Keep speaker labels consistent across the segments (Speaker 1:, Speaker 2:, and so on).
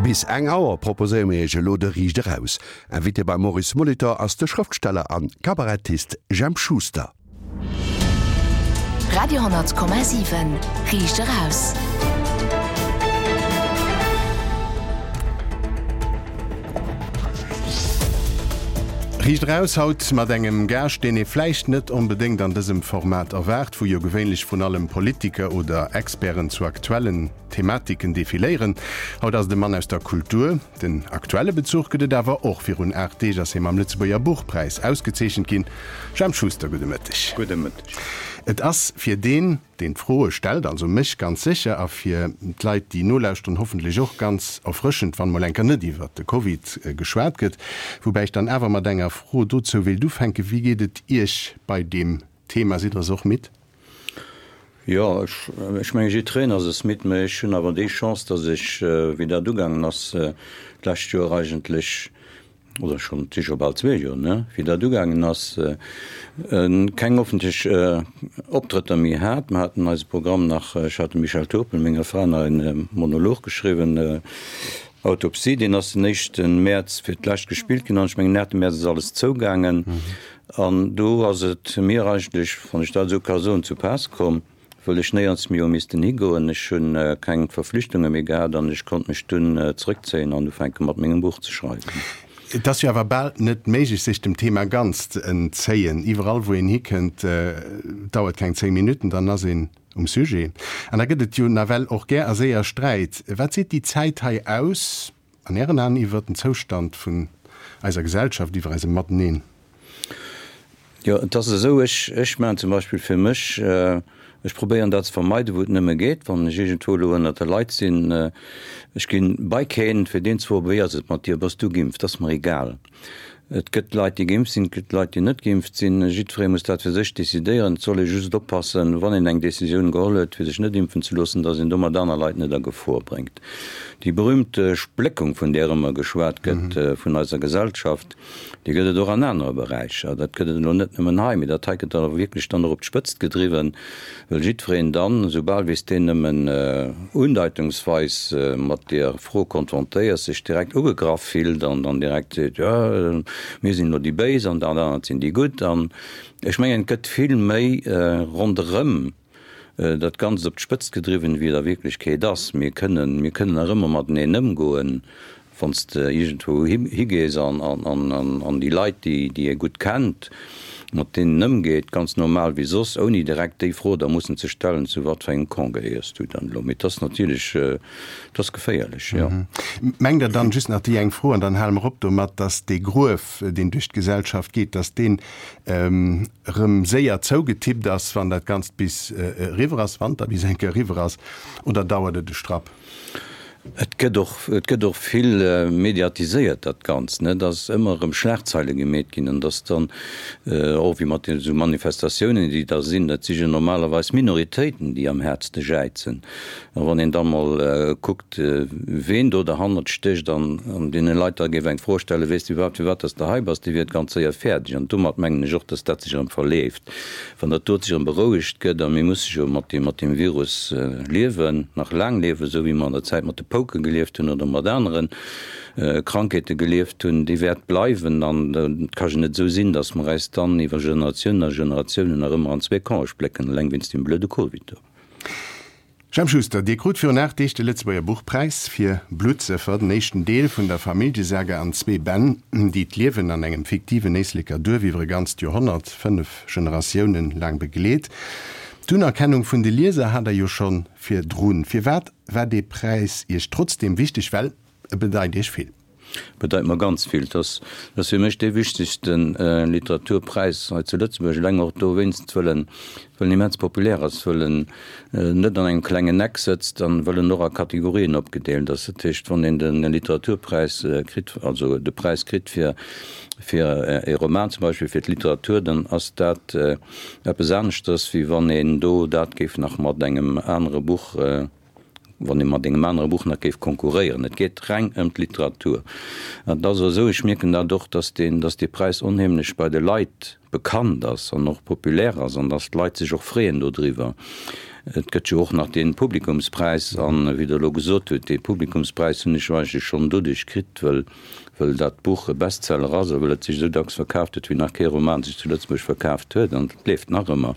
Speaker 1: Bis eng Auer proposéiere mir Iech elo de Riicht Eraus. Invité beim Maurice Molitor ass de Schrëftsteller an Kabarettist Jemp Schuster.
Speaker 2: Radio,7 Riicht Eraus.
Speaker 3: Riicht Eraus haut mat engem Gaascht, deen ee vläicht net onbedéngt an dësem Format erwaart, wou jo gewéinlech vrun allem Politiker oder Experten zu aktuellen Thematiken defiléieren. Haut ass et e Mann aus der Kultur. Den aktuelle Bezuch gëtt et awer och. Virun 8 Deeg ass hie mam Lëtzebuerger Buchpräis ausgezeechent ginn. Jemp Schuster, gudde Mëtteg.
Speaker 4: Gudde Mëtteg.
Speaker 3: Et ass fir deen, deen d'Froe stellt, also mech ganz sécher, a fir d'Leit, déi nolauschteren, hoffentlech och ganz erfrëschend, wann mol enker net iwwert de Covid geschwat gëtt. Woubäi ech dann awer mat enger Fro dozou wéilt ufänken, Wéi geet et Iech bei deem Thema? Sidd Der es och midd?
Speaker 4: Jo, ech menge jiddwereen ass es midd, mä ech hunn awer déi Chance, datt ech, wéi dat ugaangen ass d'lescht Joer eigentlech, oder schonn, et si scho bal zwee Joer, ne, wéi dat ugaangen ass, keng offentlech Optrëtter méi hat. Mer haten eise Programm nach, ech hat dem Michel Turpel, menger Fra, nach e Monolog geschriwwen, Autopsie, deen ass den éischte Mäerz fir d'lescht gespillt ginn an ech mengen, 8 Mäerz ass alles zougaangen. An do ass et mir eigentlech, wann ech dat esou ka soen, zu Paass komm, wëll ech néierens méi hu missten higoen. Ech hu keng Verflichtunge méi gehat an ech konnt mech dunn zrëckzéien an ufänke mat mengem Buch ze schreiwen.
Speaker 3: Et ass jo awer bal net méiglech, sech dem Thema ganz ze entzéien. Iwwerall wou een hikënnt, dauert keng 10 Minutten, dann ass een um Sujet. An da gëtt et jo nawell och gär a séier Sträit. Wat seet déi Zäit hei aus? An Ären Aen iwwer den Zoustand vun eiser Gesellschaft, iwwer eisem Mateneen?
Speaker 4: Jo, et ass esou, ech, ech maachen zum Beispill fir mech, ech probéieren dat ze vermeiden, wou et nëmme geet, wann ech iergendwou elo ënnert de Leit sinn, ech ginn bei keen, fir deen ze froen, wéi ass et mat dir, bass du geimpft, ass mer egal. Et gëtt Leit, déi geimpft sinn, et gëtt Leit, déi net geimpft sinn. Jiddweree muss dat fir sech decidéieren. Et soll ee just oppassen, wann een eng Decisioun geholl huet, fir sech net impfen ze loossen, datt een domat aner Leit net a Gefor bréngt. Déi berühmte Spléckung, vun där ëmmer geschwat gëtt, vun eiser Gesellschaft, déi gëtt et och an anere Beräicher. Dat gëtt et elo net nëmmen hei, mee dat hei gëtt awer wierklech dann och op d'Spëtzt gedriwwen. Well jiddwereen dann, soubal wéi s deen nëmmen undeitungsweis mat deer Fro konfrontéiers, sech direkt ugegraff fillt an dann direkt seet, jo, mir sinn elo déi Béis an dat anert sinn déi Gutt. An ech mengen, et gëtt vill méi ronderëm dat Ganzt op d'Spëtzt gedriwwen, wéi et a Wierklechkeet ass. Mir kënnen, mir kënnen nach ëmmer mateneen ëmgoen. Wann s de iergendwou higees an déi Leit, déi ee gutt kennt, mat deenen ëmgeet, ganz normal wéi soss, ouni direkt déi Fro da mussen ze stellen, zu wat fir engem Camp gehéiers du dann elo? Mee et ass natierlech, et ass geféierlech, jo.
Speaker 3: Mengt Der dann, just nach déi eng Fro an dann hale mer op domat, datt dee Gruef, deen duerch d'Gesellschaft geet, datt deen erëm séier zougetippt ass, wann dat Ganzt bis eriwwer ass, wann et da bis eng Kéier eriwwer ass, oder dauert et e Strapp?
Speaker 4: Et gëtt och, et gëtt och vill mediatiséiert dat Ganzt, ne, dass ëmmer erëm Schlagzeile gemeet ginn an dass dann och wéi mat esou Manifestatiounen, déi da sinn, dat si jo normalerweis Minoritéiten, déi am häertste jäizen. A wann een da mol kuckt, ween do derhannert stécht an an deene Leit da géif eng Fro stellen, Weess de iwwerhaapt, firwat dass de hei bass? Déi wier et ganz séier fäerdeg. An domat mengen ech och, dass dat sech erëm verleeft. Wann dat dot sech erëm berouegt gëtt, a mir musse jo mat deem, mat deem Virus liewen, nach laang liewen, esou wéi mer an der Zäit mat de Pouke gelieft hunn oder mat anere Krankheete gelieft hunn, déi wäert bleiwen. An et ka jo net esou sinn, datt mer eis dann iwwer Generatiounen a Generatiounen nach ëmmer an zwee Campe splécken, eleng wéinst deem blöde Covid do.
Speaker 3: Jemp Schuster, Dir krut virun 8 Deeg de Lëtzebuerger Buchpräis fir Bluttsëffer, den éischten Deel vun der Familljesaga an zwee Bänn, déi d'Liewen an engem fiktiven Éisleker Duerf iwwer e ganzt Joerhonnert, 5 Generatiounen laang begleet. D'Unerkennung vun de Lieser hat Der jo scho virdrun. Firwat war dee Präis Iech trotzdeem wichteg? Well e bedeit Iech vill.
Speaker 4: Bedeit mer ganz vill. Et ass fir mech dee wichtegste Literaturpräis hei zu Lëtzebuerg, eleng och dowéinst, wëll en wëll en immens populär ass, wëll en net an engem klengen Eck sëtzt an wëll en och a Kategorien opgedeelt ass. Dat heescht, wann een de Literaturpräis kritt, also de Präis kritt fir fir e Roman zum Beispill, fir d'Literatur, dann ass dat eppes aneschters, wéi wann een do dat géif nach mat engem anere Buch wann ee mat engem anere Buch nach géif konkurréieren. Et geet reng ëm d'Literatur. An et ass och esou, ech mierken dat och, datt deen, datt dee Präis onheemlech bei de Leit bekannt ass an och populär ass an datt d'Leit sech och freeën dodriwwer. Et gëtt jo och nach dee Publikumspräis. An, wéi Der elo gesot hutt, dee Publikumspräis hunn ech jo eigentlech schonn doduerch kritt, wëll, wëll dat Buch e Bestseller ass a wëll et sech esou dacks verkaaft huet, wéi nach kee Roman sech zu Lëtzebuerg verkaaft huet. An et leeft nach ëmmer.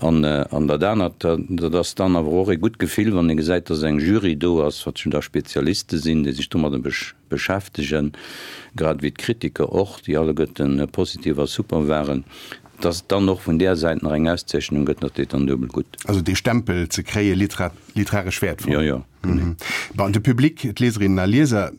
Speaker 4: An, an dat anert, dat ass dann awer och e gutt Gefill, wann ee gesäit, dass eng Jury do ass, wat jo da Spezialiste sinn, déi sech domadder beschäftegen, grad ewéi d'Kritiker och, déi alleguerten positiv a super waren. Dass et dann och vun där Säit nach eng Auszeechnung gëtt, dat deet dann duebel gutt.
Speaker 3: Also dee Stempel ze kréie, literaresch wäertvoll.
Speaker 4: Jo, jo, genee.
Speaker 3: Bon, de Public, d'Lieserinnen a Lieser,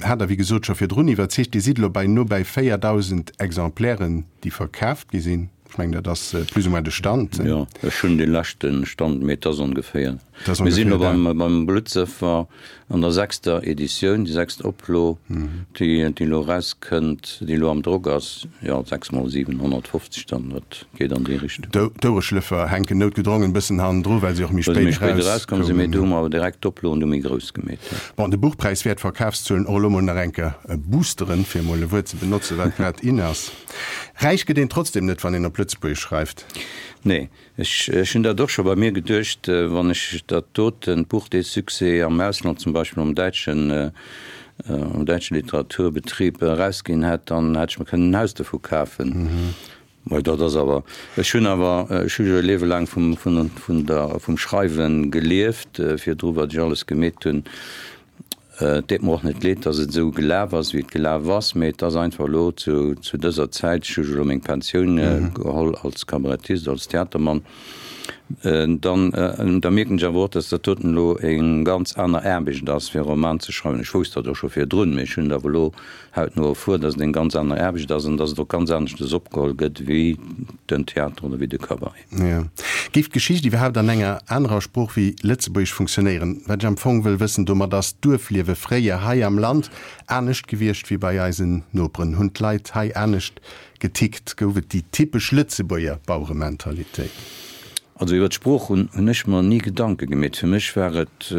Speaker 3: hat Der wéi gesot scho virdrun iwwerzeegt. Dir sidd elo bei no bei 4.000 Exemplairen, déi verkaaft gi sinn. Ech mengen, dat ass plus ou moins de Stand.
Speaker 4: Jo, ech hunn dee leschte Stand, mee et ass ongeféier. Mir sinn elo beim Bluttsëffer an der sechster Editioun, déi sechst Oplo, déi elo erauskënnt, déi elo am Drock ass. Jo, 6 mol 750 dann, dat geet an déi Richtung.
Speaker 3: D'Ouereschlëffer hänken noutgedrongen e bëssen hannendru, well se och méi spéit
Speaker 4: erauskomm sinn. Mee do hu mer awer direkt d'Oploen du méi grouss gemeet.
Speaker 3: Bon, de Buchpräis wäert d'Verkafszuelen och elo mol nach eng Kéier boosteren, fir emol e Wuert ze benotzen, wat grad in ass. Räich gëtt een trotzdem net, wann een op Lëtzebuergesch schreift.
Speaker 4: Nee, Ech hunn dat och scho bei mir geduecht, wann ech dat doten Buch, dee Succès am Ausland, zum Beispill am däitschen, am däitsche Literaturbetrieb erausginn hätt, dann hätt ech mer kënnen en Haus dovu kafen. Mä dat ass awer, ech hunn awer, ech hu jo e Liewe laang vum, vun, vun der, vum Schreiwe gelieft, virdru wat ech alles gemeet hunn. Et deet mer och net leed, dass et esou gelaf ass, wéi et gelaf ass, mee et ass einfach elo zu dëser Zäit, ech hu jo elo meng Pensioun geholl als Kabarettist, als Theatermann, dann da mierken ech awer och, dass dat doten elo eng ganz aner Aarbecht ass, fir e Roman ze schreiwen. Ech wousst dat och scho virdrun, mee ech hunn et awer elo hautno erfuer, dass et eng ganz aner Aarbecht ass an dass et och ganz aneschtes opgeholl gëtt wéi den Theater oder wéi de Cabaret.
Speaker 3: Jo. Géif d'Geschicht iwwerhaapt an enger anerer Sprooch wéi Lëtzebuergesch funktionéieren? Wat ech am Fong wëll wëssen domat, ass d'Duerfliewe fréier hei am Land anescht gewiescht wéi bei eisen Noperen? Hunn d'Leit hei anescht getickt? Gouf et déi typesch Lëtzebuerger Bauerementalitéit?
Speaker 4: Also iwwer d'Sprooch hunn ech mer ni Gedanke gemeet. Fir mech war et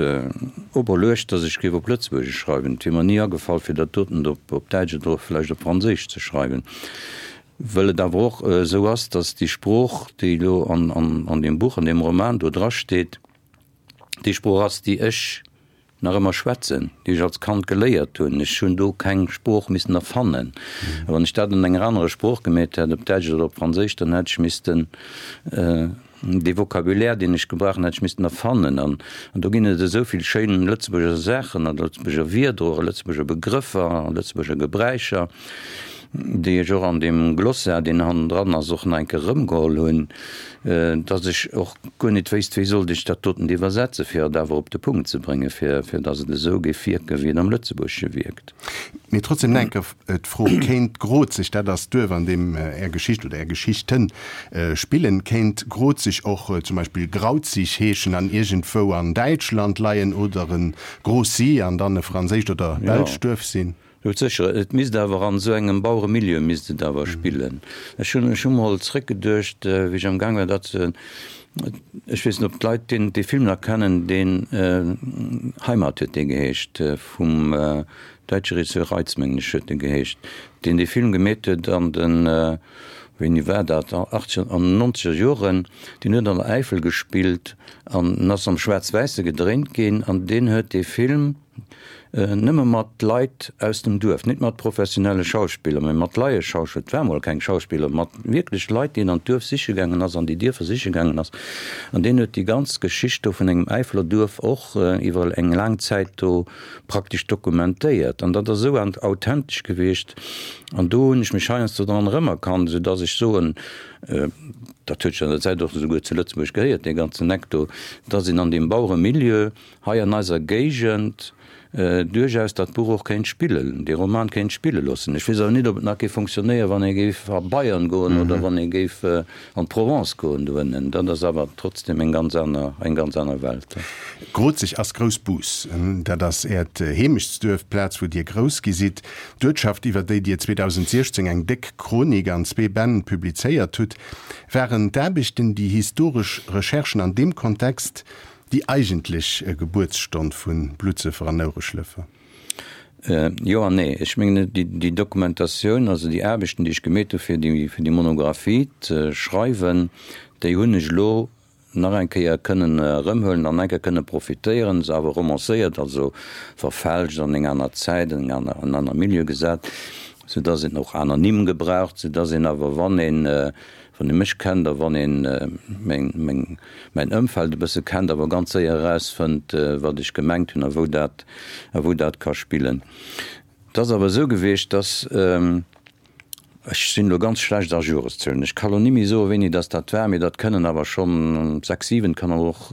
Speaker 4: operluecht, datt ech géif op Lëtzebuergesch schreiwen. Et wier mer ni agefall, fir dat doten op Däitsch oder vläicht op Franséisch ze schreiwen. Wëll et awer och esou ass, datt déi Sprooch, déi elo an deem Buch, an deem Roman do drasteet, déi Sprooch ass, déi ech nach ëmmer schwätzen, déi ech als Kand geléiert hunn. Ech hunn do keng Sprooch missen erfannen. A wann ech dat an enger anerer Sprooch gemeet hätt, op Däitsch oder op Franséisch, dann hätt ech missten Dee Vocabulaire, deen ech gebrauchen, hätt ech missten erfannen. An do ginn et esou vill schéin Lëtzebuerger Saachen a Lëtzebuerger Wierder och a Lëtzebuerger Begrëffer a Lëtzebuerger Gebräicher, déi ech och an deem Glossaire, deen hannendran ass, och nach eng Kéier erëmgeholl hunn, datt ech och guer net wéisst, wéi sollt ech dat doten iwwersetzen, fir et awer op de Punkt ze bréngen, fir datt et esou géif wierken, wéi et am Lëtzebuergesche wierkt.
Speaker 3: Mee trotzdem nach eng Kéier d'Fro, Kéint Grozeg, dat ass d'Duerf an deem Är Geschicht oder Är Geschichten spillen, kéint Grozeg och zum Beispill Grauzig heeschen an iergendwou an Däitschland leien oder e Grocy an dann e franséischt oder belscht Duerf sinn?
Speaker 4: Jo, sécher. Et misst awer an esou engem Baueremilieu misst et awer spillen. Ech hunn, ech hu mol zréckgeduecht, wéi ech am Gaang war dat ze, ech weess net, ob d'Leit deen, dee Film nach kennen, deen Heimat huet dee geheescht, vum däitsche Regisseur Reitz, mengen ech, huet e geheescht, deen dee Film gemeet huet an den, wéini war dat, achtzeger an nonzeger Joren, deen huet an der Äifel gespillt an en ass am Schwaarz-Wäisse gedréint ginn an deen huet dee Film nëmme mat Leit aus dem Duerf, net mat professionelle Schauspiller, mä mat Laieschauspiller, et war mol keng Schauspiller, mat wierklech Leit, déi en an d'Duerf siche gaangen ass, an déi Dierfer siche gaangen ass. An deen huet déi ganz Geschicht do vun engem Äifeler Duerf och iwwer eng laang Zäit do praktesch dokumentéiert. An dat ass esou authentesch gewiescht. An do hunn ech mech heiansdo dran erëmerkannt, esou dass ech soen, dat huet sech an der Zäit och esouguer zu Lëtzebuerg gehéiert, dee ganzen Eck do, dass een an deem Baueremilieu hei an eiser Géigend duerchaus dat Buch och kéint spillen, dee Roman kéint spille loossen. Ech weess awer net, ob et nach géif fonctionnéieren, wann ee géif a Bayern goen oder wann ee géif an d'Provence goen doënnen. Dat ass awer trotzdem eng ganz aner, eng ganz aner Welt.
Speaker 3: Grozeg ass Groussbus. Dat ass Äert Heemechtsduerf, d'Plaz, wou Dir grouss gi sidd. D'Uertschaft, iwwer déi Dir 2016 eng déck Chronik an zwee Bänn publizéiert hutt. Waren d'Aarbechten, déi historesch Recherchen an deem Kontext, Déi eigentlech Gebuertsstonn vu Bluttsëffer an Ouereschlëffer?
Speaker 4: Jo an nee. Ech mengen, déi Dokumentatioun, also déi Aarbechten, déi ech gemeet hu fir déi, fir déi Monographie ze schreiwen, déi hunn ech elo. nach eng Kéier kënnen erëmhuelen an eng Kéier kënne profitéieren, se awer romancéiert, also verfälscht, an eng aner Zäit, an en aner Milieu gesat, soudass een och aner Nimm gebraucht, soudass een awer, wann een, wann ee mech kennt a wann een meng, meng, mäin Ëmfeld e bësse kennt, awer ganz séier erausfënnt, wat ech gemengt hunn a wou dat, a wou dat ka spillen. Et ass awer esou gewiescht, dass, ech sinn elo ganz schlecht a Joreszuelen, ech ka lo ni méi soen, wéini dass dat war, mee dat kënnen awer schonn 6, 7, kann awer och,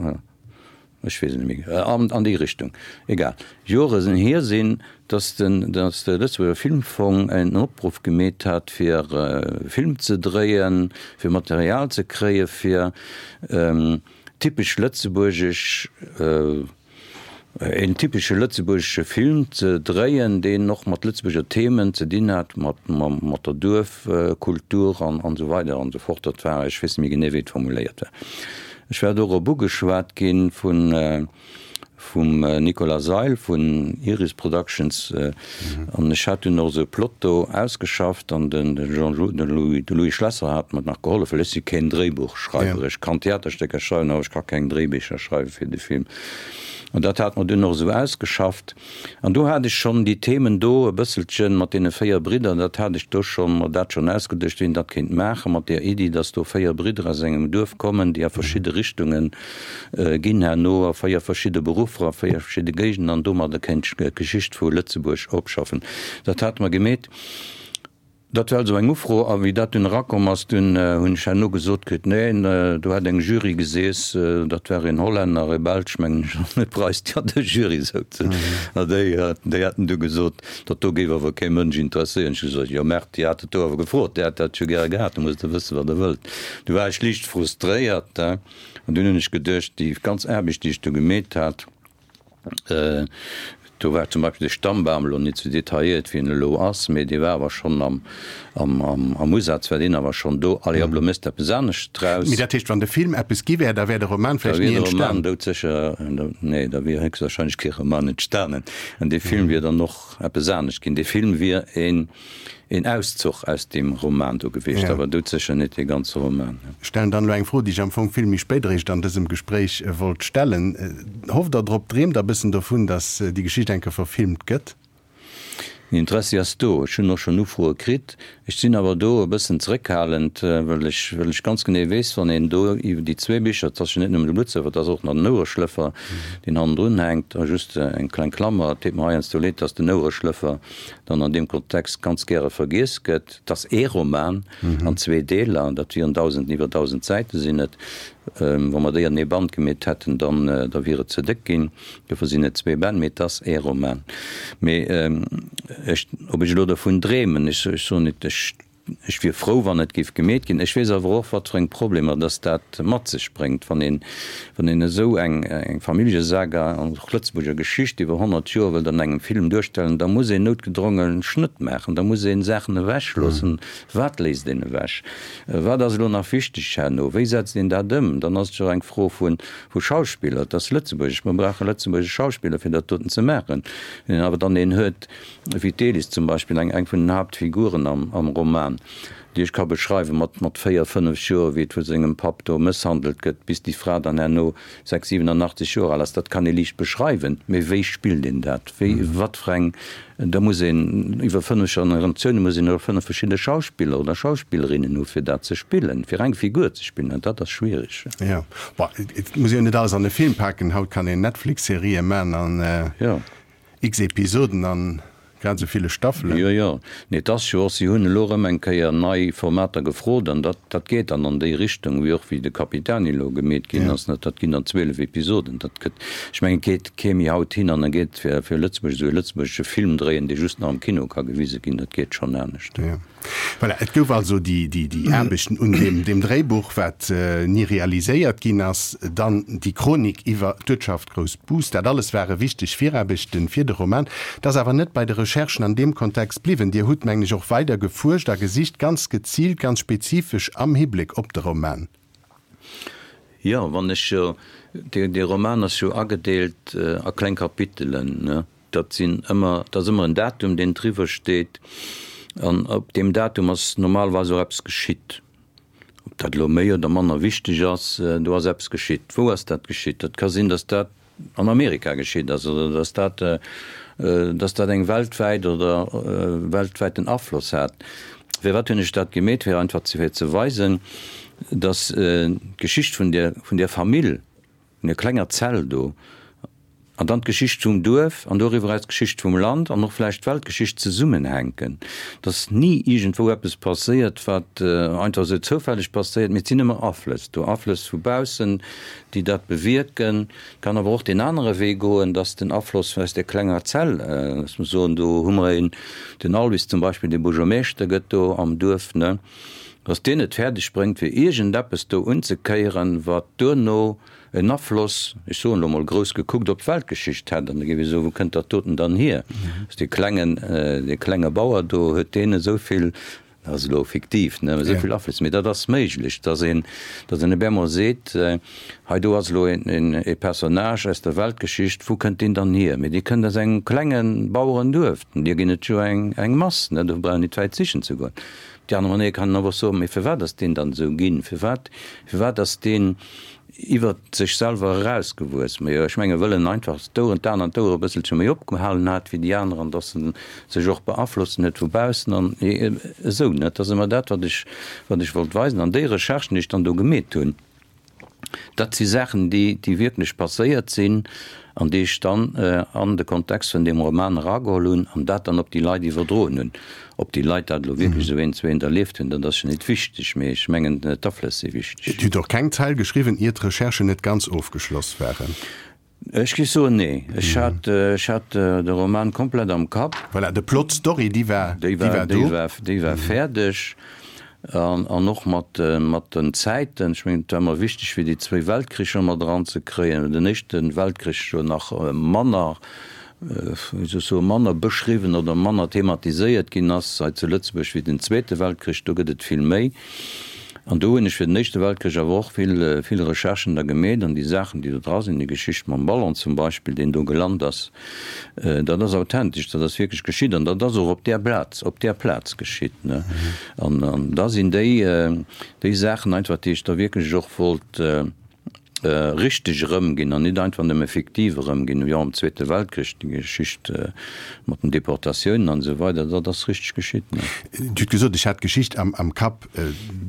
Speaker 4: ech weess et net méi, an déi Richtung, egal, Jore hier sinn, dass den, dass de Lëtzebuerger Filmfong en Opruff gemeet hat, fir e Film ze dréien, fir Material ze kréie fir typesch lëtzebuergesch, een typesche lëtzebuergesche Film ze dréien, deen och mat Lëtzebuerger Themen ze dinn hat, mat, mat der Duerfkultur an, an esou weider an esou fort. Dat war, ech weess net méi genee, wéi et formuléiert war. Ech war dorop ugeschwat gi vun, vum Nicolas Seil vun Iris Productions an ech hat dunn och esou e Plot do ausgeschafft an den Jean, de Louis, de Louis Schlesser hat mer nach gehollef, well ech si keen Dréibuchschreiwer. Ech kann Theaterstécker schreiwen, awer ech ka keng Dréibicher schreiwe fir de Film. An dat hat mer dunn och esou ausgeschafft. An do hat ech schonn déi Themen do e bësselchen mat deene 4 Bridder, dat hat ech do schonn, mer dat schonn ausgeduecht, wien dat kéint maachen, mat där Iddi, dass do 4 Bridder aus engem Duerf kommen, déi a verschidde Richtunge ginn herno, a 4 verschidde Beruffer, a 4 verschidde Géigenden an domadder kéint d'Geschicht vu Lëtzebuerg opschaffen. Dat hate mer gemeet. Dat war also eng Ufro, a wéi dat dunn erakomm ass, dunn hunn ech herno gesot kritt, neen, do hätt eng Jury geseess, dat war een Hollänner, e Belsch mengen ech, an e Preis, déi an der Jury souzen, a déi, déi hätten du gesot, dat do géif awer kee Mënsch interesséieren. Ech hu gesot, jo merdt, Dir hat et do awer gefrot, Dir hat dat jo gäre gehat, da musst Der wëssen, wat Der wëllt. Du war ech liicht frustréiert, an dunn hunn ech geduecht, déi ganz Aarbecht, déi ech do gemeet hat, Do war zum Beispill de Stammbam elo net sou detailléiert, wéi en elo ass, mee dee war awer schonn am, am Usaz war deen awer schonn do. Allez, op elo méchs de eppes anescht draus.
Speaker 3: Mee dat heescht, wann de Film eppes gi wär, da wär de Roman vläicht ni
Speaker 4: entstanen? Da wier de Roman doudsécher, nee, da wier héchstwahrscheinlech kee Roman entstanen. An dee Film wier dann och eppes anescht ginn. Dee Film wier een. Een Auszuch aus deem Roman do gewiescht, awer doudsécher net dee ganze Roman.
Speaker 3: Ech stellen dann elo eng Fro, déi ech am Fong vill méi spéit eréischt an dësem Gespréich wollt stellen. Hofft Der drop, dreemt Der e bëssen dovun, datt déi Geschicht eng Kéier verfilmt gëtt?
Speaker 4: Den Interessi ass do. Ech hunn och schonn Ufroe kritt. Ech sinn awer do e bëssen zeréckhalend, well ech, well ech ganz genee weess, wann een do iwwer déi zwee Bicher, et ass jo net nëmmen de Bluttsëffer, et ass och nach den Ouereschlëffer, deen hannendrun hänkt, a just eng kleng Klammer, et deet mer heiansdo leed, datt den Ouereschlëffer dann an deem Kontext ganz gäre vergiess gëtt, 't ass ee Roman an zwee Deeler, dat wieren 1.000, iwwer 1.000 Säite sinn et. Wa mer déi an ee Band gemeet hätten, dann da wier et ze déck ginn. Dofir sinn et zwee Bänn, mee 't ass ee Roman. Mee ech, ob ech elo dovun dreemen, ech soen net, ech Ech wier frou, wann et géif gemeet ginn. Ech weess awer och, wat fir eng Problemer dass dat mat sech bréngt, wann een, wann een esou eng, eng Familljesaga an och Lëtzebuerger Geschicht iwwer 100 Joer wëllt an engem Film duerstellen, da muss een noutgedronge Schnëtt maachen, da muss ee Saachen ewechloossen. Wat léisst een ewech? Wat ass elo nach wichteg herno? Wéi setzt een dat ëm? Dann ass et jo och eng Fro vu, vu Schauspiller. Et ass Lëtzebuergesch, mer brauche lëtzebuergesch Schauspiller, fir dat doten ze maachen. Wann een awer dann een huet, Wéi d'Elis zum Beispill, eng eng vun den Haaptfiguren am am Roman, déi ech ka beschreiwen, mat mat 4, 5 Joer, wéi et vu sengem Papp do mësshandelt gëtt, bis déi Fra dann herno 6, 87 Joer al ass, dat kann ee liicht beschreiwen, mee wéi spillt een dat? Wéi, wat fir eng, da muss een iwwer 5 Generatiounen, muss een och 5 verschidde Schauspiller oder Schauspillerinnen hu fir dat ze spillen, fir eng Figur ze spillen, an dat ass schwierig.
Speaker 3: Jo, bon, et muss een jo net alles an e Film paken, haut kann een Netflix-Serië man an.
Speaker 4: Jo.
Speaker 3: X Episoden an grad esou ville Staffelen.
Speaker 4: Jo, jo. Nee, et ass jo och, si hunn elo erëm eng Kéier nei Formater gefrot an dat, dat geet dann an déi Richtung, wéi och wéi de Capitani elo gemeet ginn ass. Dat ginn dann 12 Episoden. Dat gëtt, ech mengen, et geet kee méi haut hin an e geet fir, fir Lëtzebuerg esou e lëtzebuergesche Film dréien, dee just nach am Kino ka gewise ginn. Dat geet schonn anescht.
Speaker 3: Jo. Voilà, et gouf also déi, déi, déi Aarbechten un deem, deem Dréibuch, wat ni realiséiert ginn ass, dann déi Chronik iwwer d'Uertschaft Groussbus. Dat alles ware wichteg Viraarbechten fir de Roman. Et ass awer net bei de Recherchen an deem Kontext bliwwen. Dir hutt, mengen ech, och weider gefuerscht a gesicht, ganz geziilt, ganz spezifesch am Hibléck op de Roman.
Speaker 4: Jo, wann ech jo, dee, dee Roman ass jo agedeelt a kleng Kapitelen, ne? Dat sinn ëmmer, dat ass ëmmer en Datum, deen driwwer steet, an op deem Datum ass normalerweis och eppes geschitt. Ob dat elo méi oder manner wichteg ass, do ass eppes geschitt. Wou ass dat geschitt? Dat ka sinn, datt dat an Amerika geschitt ass oder datt dat, datt dat eng weltwäit oder weltwäiten Afloss hat. Firwat hunn ech dat gemeet? Fir einfach fir ze weisen, datt d'Geschicht vun där, vun där Famill, vun där klenger Zell do, An dann d'Geschicht vum Duerf an doriwwer eraus d'Geschicht vum Land an och vläicht d'Weltgeschicht zesummenhänken. Dass ni iergendwou eppes passéiert, wat einfach esou zoufälleg passéiert, mee et sinn ëmmer Aflëss do, Aflëss vu baussen, déi dat bewierken. Et kann awer och deen anere Wee goen, dass den Afloss aus där klenger Zell, dass mer soen, do hu mer een, den Alwis zum Beispill, dee Buergermeeschter gëtt do am Duerf, ne, dass deen et fäerdeg bréngt, fir iergendeppes do unzekéieren, wat duerno en Afloss, ech soen elo mol grouss gekuckt, op d'Weltgeschicht hätt. An da géif ee soen, wou kënnt dat doten dann hier? Ass dee klengen, dee klenge Bauer do, huet deen esou vill, dat ass elo fiktiv, ne, esou vill Afloss? Mee dat ass méiglech, dass een, dass een op eemol seet, hei do ass elo een, e Personnage aus der Weltgeschicht, wou kënnt deen dann hier? Mee dee kënnt aus engem klenge Bauerenduerf, deer ginn et jo eng, eng Mass, ne, do brauch een nit wäit sichen ze goen. Op déi aner Manéier kann een awer och soen, mee firwat ass deen dann esou ginn? Firwat, firwat ass deen iwwert sech selwer erausgewuess? Majo, ech menge wëll en einfach d'Oueren, d'Aen an d'Ouere e bësselche méi opgehalen hat wéi déi aner an dass en sech och beaflossen huet vu baussen an esou, ne? Dat ass ëmmer dat, wat ech, wat ech wollt weisen. An déi Recherchen, déi ech dann do gemeet hunn, Dat si Saachen, déi, déi wierklech passéiert sinn an déi ech dann an de Kontext vun deem Roman erageholl hunn an dat dann op déi Leit iwwerdroen hunn. Ob déi Leit dat elo wierklech esou eent zu eent erlieft hunn, dat ass jo net wichteg, mee ech mengen, d'Aflëss si wichteg.
Speaker 3: Dir hutt och keng Zeil geschriwwen, ier d'Recherchen net ganz ofgeschloss waren.
Speaker 4: Ech géif soen, nee. Ech hat, ech hat de Roman komplett am Kapp.
Speaker 3: Voilà, de Plot, d'Story, déi war, déi war do.
Speaker 4: Déi war, déi war fäerdeg. An, an och mat, mat den Zäiten. Ech mengen, et war mer wichteg, fir déi zwéi Weltkricher mat eranzekréien. Den éischte Weltkrich jo nach manner, wéi soll ech soen, manner beschriwwen oder manner thematiséiert ginn ass hei zu Lëtzebuerg wéi den Zweete Weltkrich. Do gëtt et vill méi. An do hunn ech fir den Éischte Weltkrich awer och vill, vill Recherchen da gemeet an déi Saachen, déi do dra sinn, déi Geschicht mam Ballon zum Beispill, deen do gelant ass, dat ass authentesch, dat ass wierklech geschitt an dat ass och op där Plaz, op där Plaz geschitt, ne. An, an da sinn déi, déi Saachen einfach, déi ech da wierklech och wollt richteg erëmginn an nit einfach nëmme fiktiv erëmginn, jo am Zweete Weltkrich, déi Geschicht mat den Deportatiounen an esou weider, dat ass richteg geschitt.
Speaker 3: Dir hutt gesot, ech hat d'Geschicht am Kapp.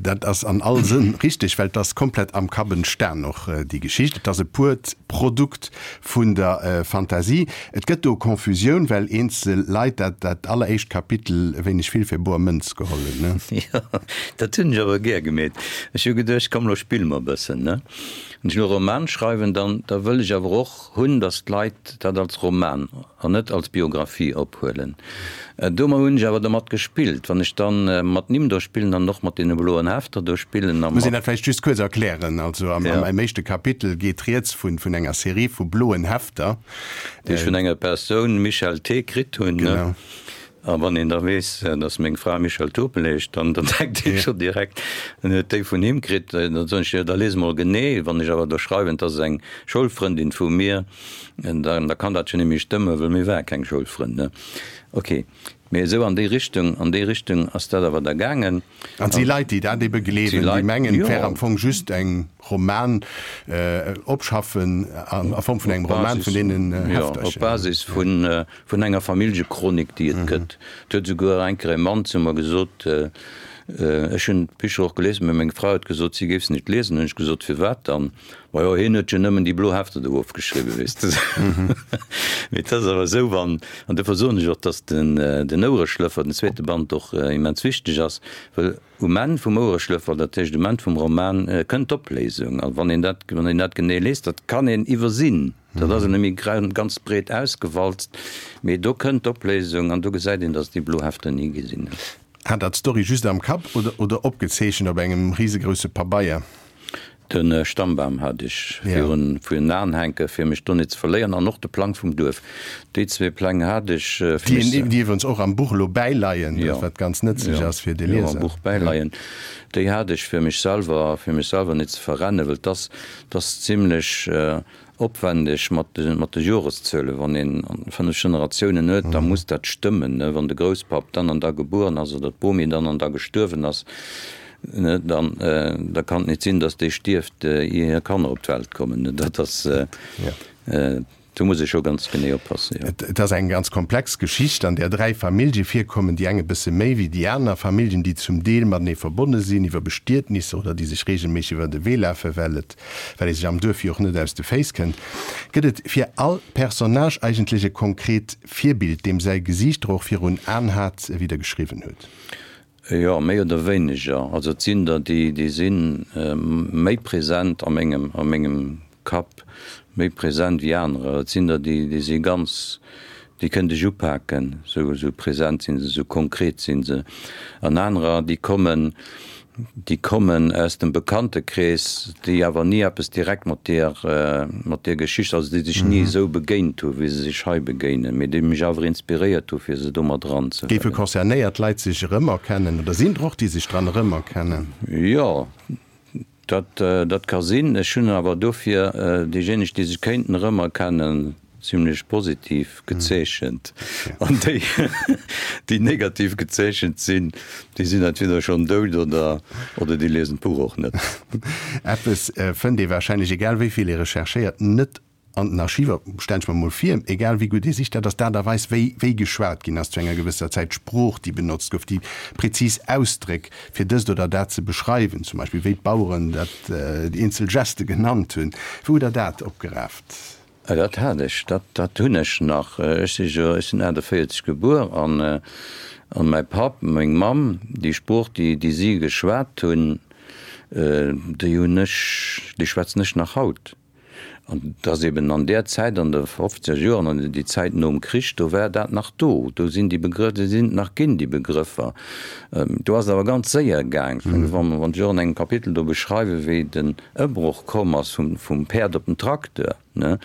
Speaker 3: Dat ass an all Sënn richteg, well et ass komplett am Kapp entstan och, déi Geschicht. Et ass e puert Produkt vun der Fantasie. Et gëtt do Confusioun, well eenzel Leit dat dat alleréischt Kapitel e wéineg vill fir boer Mënz geholl hunn, ne?
Speaker 4: Jo, dat hunn ech awer gär gemeet. Ech hu geduecht, komm lo spille mer e bëssen, ne? Wann ech elo e Roman schreiwen, dann da wëll ech awer och hunn, datt d'Leit dat als Roman an net als Biographie ophuelen. Domat hunn ech awer domat gespillt. Wann ech dann mat Nimm do spillen an och mat deene bloen Hefter do spillen a
Speaker 3: Muss een mat. dat vläicht just kuerz erklären? Also am am éischte Kapitel geet rieds vun vun enger Serie vu bloen Hefter.
Speaker 4: Déi ech vun enger Persoun, Michèle T. kritt hunn.
Speaker 3: Genau.
Speaker 4: A wann een da weess, datt meng Fra Michèle Turpel heescht, dann dann denkt ee scho direkt, en huet déi vun him kritt. Dann soen ech, jo da lies mol genee. Wann ech awer do schreiwen, 't ass eng Schoulfrëndin vu mir, Dann da kann dat jo net méi stëmmen, wëll mir ware keng Schoulfrënn, ne? Ok, mee esou an déi Richtung, an déi Richtung ass dat awer da gaangen.
Speaker 3: An et si Leit, déi dat ebe gleewen, déi mengen, et wär am Fong just eng Roman, Opschaffen a Form vun engem Roman vun deenen
Speaker 4: Heftercher. Jo, op Basis vun, vun enger Familljechronik, déi et gëtt. Et huet esouguer eng Kéier e Mann zu mer gesot, ech hunn d'Bicher och gelies, mä meng Fra huet gesot, si géif se net liesen. Hunn ech gesot, firwat dann? Majo, hien huet jo nëmmen déi blo Hefter do ofgeschriwwen, weess de. Mee et ass awer esou, wann, an dofir soen ech och, datt den, den Ouereschlëffer, den zweete Band och immens wichteg ass, well um Enn vum Ouereschlëffer, dat heescht um Enn vum Roman, kënnt d'Opléisung. A wann een dat, wann een dat genee liest, dat kann een iwwersinn, dat ass net méi ganz breet ausgewalzt, mee do kënnt d'Opléisung an do gesäit een, datt déi blo Hefter ni gesinn huet.
Speaker 3: Hat Der d'Story just am Kapp oder, oder opgezeechent op engem risegrousse Pabeier?
Speaker 4: De Stammbam hat ech virun virun Aen hänken, fir mech do net ze verléieren, an och de Plang vum Duerf. Déi zwee Pläng hat ech
Speaker 3: fir mech ze. Déi iwwerens och am Buch elo bäileien, wat ganz nëtzlech ass fir de Lieser.
Speaker 4: Jo, am Buch bäileien. Déi hat ech fir mech selwer, fir mech selwer net ze verrennen, well 't ass, 't ass zimlech opwendeg mat de, mat de Joreszuelen. Wann een 5 Generatiounen huet, da muss dat stëmmen, ne? Wann de Grousspapp dann an da gebueren ass oder d'Bomi dann an da gestuerwen ass. Dann, da kann et net sinn, datt déi stierft, ier hir Kanner op d'Welt kommen. Dat ass, do muss ee scho ganz genee oppassen, jo.
Speaker 3: Et ass eng ganz komplex Geschicht, an där 3 Famillje virkommen, déi eng e bësse méi wéi déi aner. Familljen, déi zum Deel matenee verbonne sinn iwwer Bestietnisser oder déi sech reegelméisseg iwwer de Wee lafen, well et, well ee sech am Duerf jo och net aus de Féiss kënnt. Gëtt et fir all Personnage eigentlech e konkret Virbild, deem säi Gesiicht Der och virun Aen hat, wéi Der geschriwwen hutt?
Speaker 4: Jo, méi oder wéineger. Also et sinn der, déi, déi si méi present a mengem, a mengem Kapp, méi present wéi anerer. Et sinn der, déi, déi si ganz, déi kënnt ech upaken, esou, esou present sinn se, esou konkret sinn se. An anerer, déi kommen, déi kommen aus dem Bekanntekrees, déi awer ni eppes direkt mat deer, mat deer Geschicht, also déi sech ni esou begéint hu wéi se sech hei begéinen, mee déi mech awer inspiréiert hu fir se do mat eranzehuelen.
Speaker 3: Géife concernéiert Leit sech erëmerkennen oder sinn der och, déi sech dran erëmerkennen?
Speaker 4: Jo, dat, dat ka sinn. Ech hunn awer dofir déijéineg, déi sech kéinten erëmerkennen, zimlech positiv gezeechent an déi, déi negativ gezeechent sinn, déi sinn entweder schonn dout oder, oder déi liesen d'Buch och net.
Speaker 3: Eppes fënnt ee warscheinlech, egal wéi vill ee recherchéiert, net an den Archiver, stellen ech mer mol vir, egal wéi gutt ee sicht, dat ass d'Aart a Weis, wéi wéi geschwat ginn ass zu enger gewësser Zäit, d'Sprooch, déi benotzt gouf, déi prezis Ausdréck, fir dëst oder dat ze beschreiwen, zum Beispill wéi d'Baueren dat, déi eenzel Geste genannt hunn. Wou hutt Der dat opgeraaft?
Speaker 4: Dat hat ech, dat, dat hunn ech nach. Ech si jo, ech sinn 48 gebuer an, an mäi Papp, meng Mamm, déi Sprooch, déi, déi si geschwat hunn, déi hunn ech, déi schwätzen ech nach haut. An et ass eben an där Zäit, an de fofzeger Joren, an déi Zäit nom Krich, do war dat nach do. Do sinn déi Begrëff, déi sinn nach ginn, déi Begrëffer. Do ass et awer ganz séier gaang. Wann, wann ech och an engem Kapitel do beschreiwen, wéi den Ëmbroch komm ass vum, vum Päerd op den Tracteur, ne,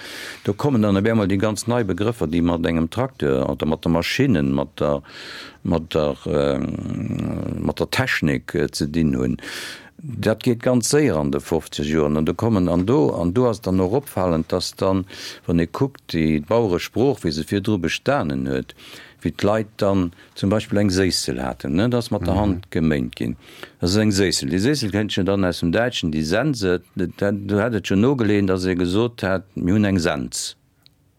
Speaker 4: do kommen dann op eemol déi ganz nei Begrëffer, déi mat engem Tracteur oder mat de Maschinnen, mat der, mat der, mat der Technik ze dinn hunn. Dat geet ganz séier an de 50 Joren. An do kommen, an do, an do ass et dann och opfalend, dass dann, wann ee kuckt, déi Baueresprooch, wéi se virdru bestanen huet, wéi d'Leit dann zum Beispill eng Séissel haten, ne, dat ass mat der Hand geméint ginn. Dat ass eng Séissel. Déi Séissel kënnt jo dann aus dem Däitschen, déi Sense, dat, do hätt et jo nogeleen, datt ee gesot hätt, mir hunn eng Sens.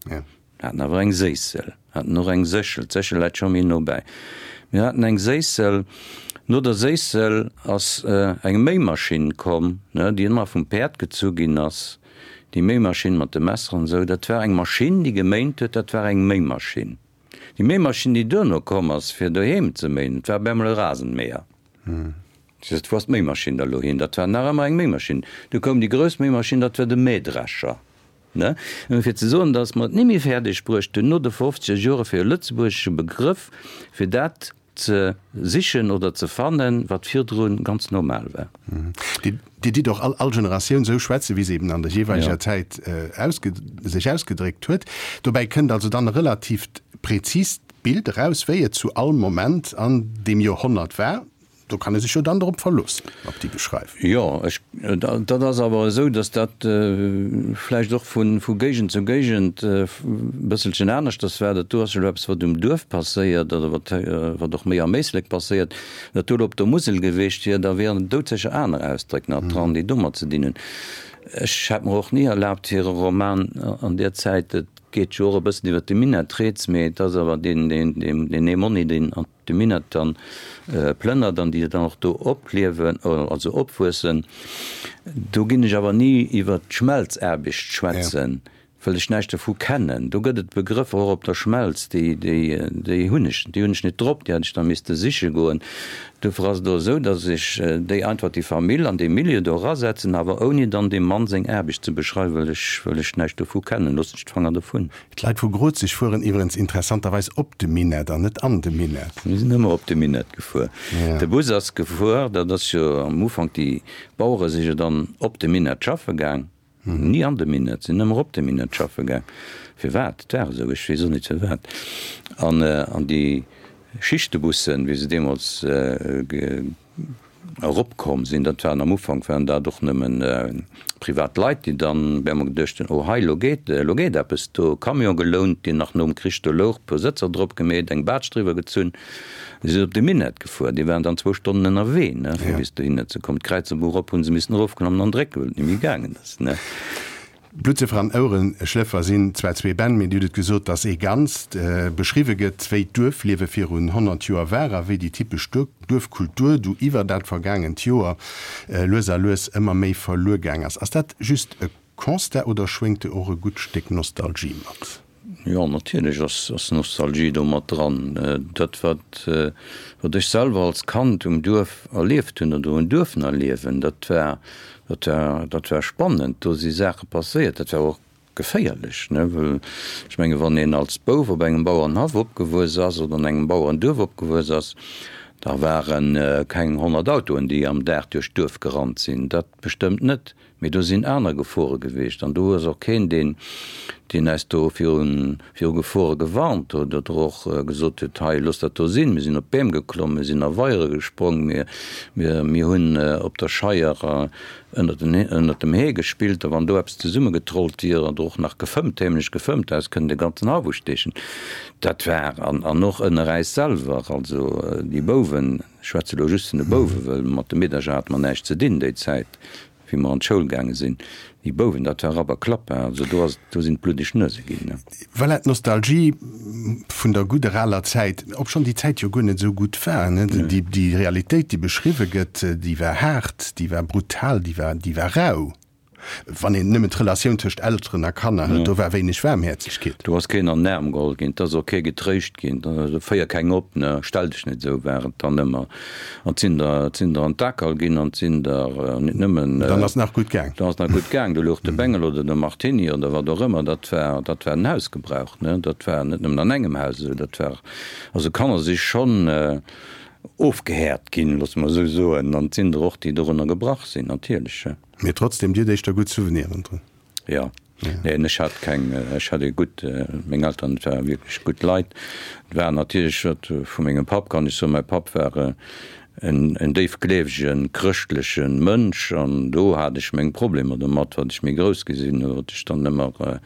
Speaker 4: Mir haten awer eng Séissel, haten och eng Séchel, d'Séchel läit scho méi no bäi. Mir haten eng Séissel. No der Séissel ass eng Méimaschinn komm, ne, déi ëmmer vum Päerd gezu ginn ass. Déi Méimaschinn mat de Messer an esou, dat war eng Maschinn, déi geméint huet, dat war eng Méimaschinn. Déi Méimaschinn, déi duerno komm ass, fir doheem ze méien, dat war op eemol e Rasenmäher. Ech sot, Wou ass d'Méimaschinn da lo hin? Dat war nach ëmmer eng Méimaschinn. Du koum déi grouss Méimaschinn, dat war de Mähdrescher. Ne? Nëmme fir ze soen, datt mer et ni méi fäerdeg bruecht hunn, no de fofzeger Jore fir e lëtzebuergesche Begrëff fir dat ze sichen oder ze fannen, wat virdru ganz normal war.
Speaker 3: Dir ditt och all all Generatioun esou schwätzen, wéi se eben an der jeeweileger Zäit ausge sech ausgedréckt huet. Dobäi kënnt also dann e relatiivt präzist Bild eraus, wéi et zu all Moment an deem Joerhonnert war. Do kann ee sech jo dann drop verloossen, op déi Beschreiwung.
Speaker 4: Jo, ech, dat ass awer esou, datt dat vläicht och vu vu Géigend zu Géigend e bësselchen aneschters war. Dat do ass jo elo eppes, wat um Duerf passéiert oder wat wat och méi am Éislek passéiert. Wat do elo op der Musel geweecht wier, da wieren doudsécher aner Ausdréck nach dran, déi domat ze dinn hunn. Ech hätt mer och ni erlaabt, fir e Roman an där Zäit, et geet jo och e bëssen iwwer de Minett rieds, mee et ass awer deen deen deen Emonni, deen an de Minett dann plënnert an déi dann och do opliewen, also opwuessen. Do ginn ech awer ni iwwer d'Schmelzaarbecht schwätzen, well ech näischt dovu kennen. Do gëtt et Begrëffer och op der Schmelz, déi, déi, déi hunn ech, déi hunn ech net drop, déi hätt ech da misste siche goen. Dofir ass et och esou, datt ech déi einfach déi Famill an dee Milieu do erasetzen, awer ouni dann deem Mann seng Aarbecht ze beschreiwen, well ech, well ech näischt dovu kennen. Loossen ech d'Fanger dovun.
Speaker 3: D'Leit vu Grozeg fueren iwwerens interessanterweis op de Minett an net an de Minett.
Speaker 4: Mir sinn ëmmer op de Minett gefuer. De Bus ass gefuer, dat ass jo am Ufank, déi Bauere si jo dann op de Minett schaffe gaang, ni an de Minett, sinn ëmmer op de Minett schaffe gaang. Firwat? Et war esou, ech weess och net firwat. An, an déi Schichtbussen, wéi se deemools. eropkomm sinn, dat waren am Ufank waren dat och nëmmen privat Leit, déi dann op eemol geduecht hunn, oh hei, elo geet, elo geet eppes do, Camion gelount, deen nach nom Krich do louch, puer Sëtzer drop gemeet, eng Baatsch driwwer gezunn, si sinn op de Minett gefuer, déi waren dann zwou Stonnen ënnerwee, ne, fir bis dohinner ze kommen. D'Kräizerbuch erop hu se missen erofklammen an drécken, well et net méi gaangen ass, ne.
Speaker 3: Bluttsëffer an Ouereschlëffer sinn zwar zwee Bänn, mee Dir hutt et gesot, dass ee Ganzt. Beschriwwe gëtt, wéi d'Duerfliewe virun 100 Joer war a wéi déi typesch Duerfkultur du iwwer dat vergaangent Joer lues a lues ëmmer méi verluer gaang ass. Ass dat just e Constat oder schwéngt do och e gutt Stéck Nostalgie mat?
Speaker 4: Jo, natierlech ass Nostalgie do mat dran. Dat, wat wat ech selwer als Kand um Duerf erlieft hunn oder hunn duerfen erliewen, dat war, dat war, dat war spannend. Do si Saache passéiert. Dat war och geféierlech, ne, well ech menge wann een als Bouf op engem Bauerenhaff opgewuess ass oder an engem Bauerenduerf opgewuess ass, da ware keng 100 Autoen, déi am Dag duerch d'Duerf gerannt sinn. Dat bestëmmt net. Mee do sinn aner Gefore gewiescht an do ass och keen, deen, deen äis do virun, viru Gefore gewarnt huet oder och gesot huet, hei, loosst dat do sinn. Mir sinn op d'Beem geklomm, mir sinn a Weiere gesprong, mir, mir, mir hunn op der Scheier ënnert den, ënnert dem Hee gespillt a wann do eppes zesummegetrollt wier oder och nach gefëmmt, heemlech gefëmmt, äis kënnen de ganzen Haff usteechen. Dat war, an, an och ënner äis selwer, also déi Bouwen, ech schwätze elo just vun de Bouwen, well mat de Meedercher hate mer näischt ze dinn déi Zäit, Wéi mer an d'Schoul gaange sinn, déi Bouwen, dat war Rapp a Klapp, hein, also do ass, do sinn d'bluddeg Nuese ginn, ne.
Speaker 3: Voilà, d'Nostalgie vun der gudder aler Zäit, obschonn déi Zäit jo guer net esou gutt war, ne. Déi, déi Realitéit, déi beschriwwe gëtt, déi war haart, déi war brutal, déi war, déi war rau. Wann een nëmmen d'Relatioun tëscht Elteren a Kanner hëlt, do war wéineg Waarmhäerzegkeet.
Speaker 4: Do ass keen an den Aarm geholl ginn, et ass och kee getréischt ginn, féier keng op, ne, stell dech net esou, war et dann ëmmer. An 't sinn der, 't sinn der an d'Akerl ginn an 't sinn der net nëmmen.
Speaker 3: Dann ass nach gutt gaang.
Speaker 4: Dann ass nach gutt gaang. Do louch de Bengel oder de Martini oder wat och ëmmer. Dat war, dat war den Hausgebrauch, ne. Dat war net nëmmen an engem Haus esou. Dat war, also Kanner si schonn ofgehäert ginn, loosse mer esou soen. An 't sinn der och, déi dorunner gebrach sinn, natierlech.
Speaker 3: Mee trotzdem, Dir hutt éischter gutt Souveniren drun.
Speaker 4: Jo, neen, ech hat keng, ech hat ee gutt, meng Elteren, et ware wierklech gutt Leit. Et war natierlech, wat vu mengem Papp kann ech soen, mäi Papp war en en déifgleewegen, chrëschtleche Mënsch an do hat ech meng Problemer domat, wat ech méi grouss gi sinn, wat ech dann ëmmer,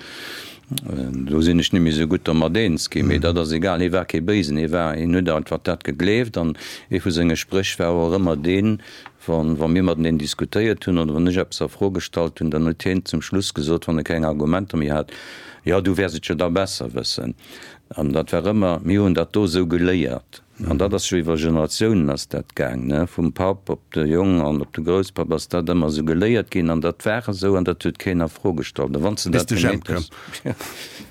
Speaker 4: do sinn ech net méi esou gutt domat eens ginn. Mee dat ass egal, hie war kee Béisen, hie war, hien huet einfach dat gegleeft an ee vu senge Spréch war och ëmmer deen, Wa mir mateneen diskutéiert hunn oder wann ech eppes a Fro gestallt hunn, dann huet hien zum Schluss gesot, wann e keng Argumenter méi hat, Jo, du wäers et jo da besser wëssen. An dat war ëmmer, Mir hunn dat do esou geléiert. An dat ass jo iwwer Generatiounen ass dat gaang, ne, vum Papp op de Jong an op de Grousspapp ass dat ëmmer esou geléiert ginn an dat war esou an dat huet keen a Fro gestallt. A wann s de
Speaker 3: dat gemeet hues,